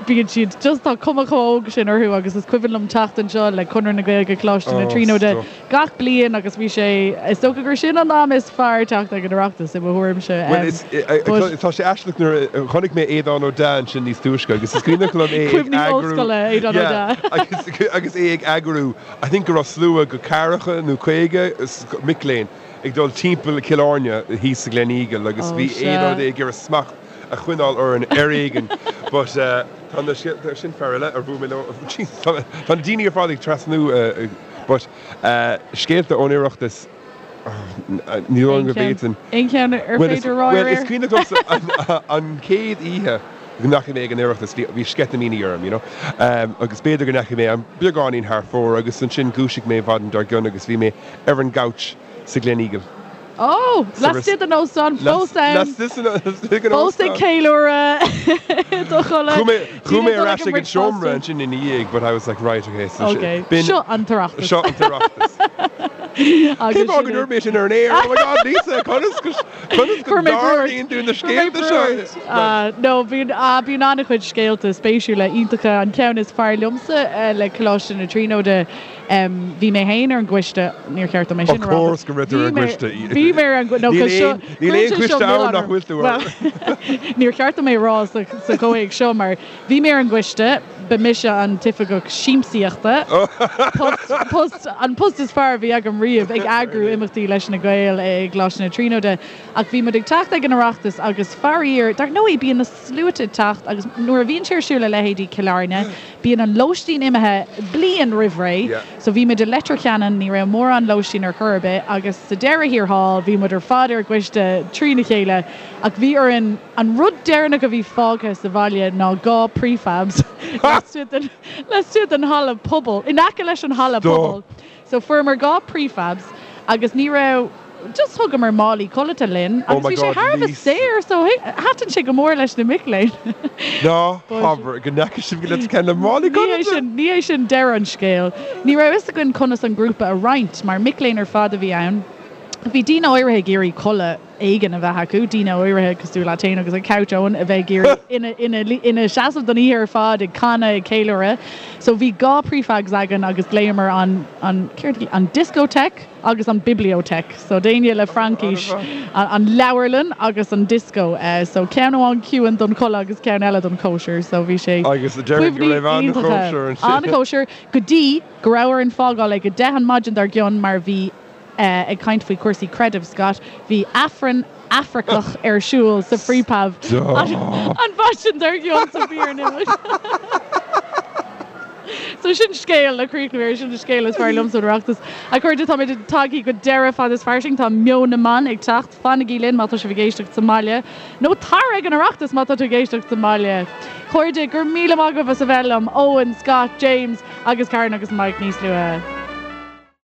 bíonn siad just, tá cuma chomh óg sin orthu agus is cuimhin liom teacht anseo le Conradh na Gaeilge Coláiste na Tríonóide gach bliain agus bhí sé, is dócha gur sin an am is fearr teacht ag an Oireachtas i mo thuairimse. Bhuel, is, But. tá sé aisteach nuair a chonaic mé Aodhán Ó Deá ansin níos túisce agus is cuimhneach liom é ag Cuimhní eagrú, ollscoile, Aodhán Ó yeah, Deá. agus, agus é ag eagrú, I think go raibh slua go ceathracha nó 50 mic léinn ag dul timpeall Cill Airne thíos sa Gleneagle agus Oh bhí sea. Aodhán Ó Deá ag iarraidh smacht a choinneáil orainn ar éigean but tá na scéalta, sin fear eile ar bhuail mé leo, jeez tá na daoine ar fad ag trasnú but scéalta ón Oireachtas ní dóigh liom go bhféadfainn. Aon cheann ar féidir a rá ar aer? Bhuel is cuimhneach liomsa an chéad oíche go ndeachaigh mé ag an Oireachtas bhí sceitimíní orm you know agus b'fhéidir go ndeachaigh mé an beagáinín thar fóir agus ansin dhúisigh mé maidin dár gcionn agus bhí mé ar an gcouch sa Gleneagle. Ó! Laistigh den óstán, fós ann. Fós ag ceiliúradh i do chodladh. Chuaigh mé ar ais ag an seomra ansin ina dhiaidh but I was like right okay so Ok, seo an tOireachtas. Seo an tOireachtas. Cén fáth go ndúirt mé sin ar an aer? Oh my God Lisa, conas go conas go dtarlaíonn tú na scéalta seo? No, bíonn bíonn an-chuid scéalta spéisiúla iontacha. An ceann is fearr liomsa le Coláiste na Tríonóide Bhí mé féin ar an gcoiste, níor cheart dom é sin a Of rá. course go raibh tú ar an gcoiste. Bhí mé ar an gcoiste, no Níl cos seo, aon, níl aon cuireann sé seo choiste ann milleán nach orm. bhfuil tú Well, air. níor cheart dom é a rá sa, sa chomhthéacs seo mar bhí mé ar an gcoiste, ba mise an t-oifigeach siamsaíochta, post, post, an post is fearr a bhí agam riamh ag eagrú imeachtaí leis na Gaeil i gColáiste na Tríonóide. Ach bhí muid ag teacht ag an Oireachtas agus faraor, dar ndóigh bíonn na sluaite ag teacht agus nuair a bhíonn sé ar siúl i leithéidí Cill Airne, Bíonn an lóistín imithe bliain roimh ré, so bhí muid i Leitir Ceanainn, ní raibh mórán lóistín ar chor ar bith agus sa deireadh thiar thall bhí muid ar fad ar an gcoiste trína chéile ach bhí orainn, an rud deireanach a bhí fágtha sa bhaile ná 2 prefabs laistigh den, laistigh den halla pobail, in aice leis an halla pobail. So fuaireamar 2 prefabs agus ní raibh, just thugamar málaí codlata linn Oh agus my bhí sé God, thar a bheith Lisa. saor so thaitin sé go mór leis na mic léinn. Ná But habair go ndeachaigh sibh go Leitir Ceanainn le málaí ní hé codlata! sin, ní hé sin deireadh an scéil. Ní raibh fhios againn conas an grúpa a roinnt mar mic léinn ar fad a bhí ann. Bhí daoine áirithe ag iarraidh codladh éigin a bheith acu, daoine áirithe cosúil leat féin agus an couch Eoin a bheith ag iarraidh ina, ina, ina seasamh don oíche ar fad ag canadh, ag ceiliúradh. So bhí 2 prefabs againn agus ghlaomar an, an, céard, an discotheque agus an bibliothèque. So d'éinne le Fraincis, an, an leabharlann agus an disco. So ceann amháin ciúin don chodladh agus ceann eile don chóisir. So bhí sé Agus déarfainn go cuimhní raibh iontacha. an-chóisir ansin. An-chóisir go dtí go raibh orainn fágáil ag 10 an maidin dár gcionn mar bhí Ag caint faoi chúrsaí creidimh, Scott, bhí Aifreann Afracach ar siúl sa prefab an mhaidin dár gcionn so bhí orainn imeacht. So sin scéal le críochnú air, sin an scéal is fearr liomsa ón Oireachtas. A chairde, táimid tagtha go deireadh Fada is Fairsing, tá Meon na mBan ag teacht, fanaigí linn má tá sibh ag éisteacht sa mbaile, nó tar ag an Oireachtas má tá tú ag éisteacht sa mbaile. Chairde, go raibh míle maith agaibh as a bheith liom, Eoin, Scott, James agus Karen agus Mike níos luaithe.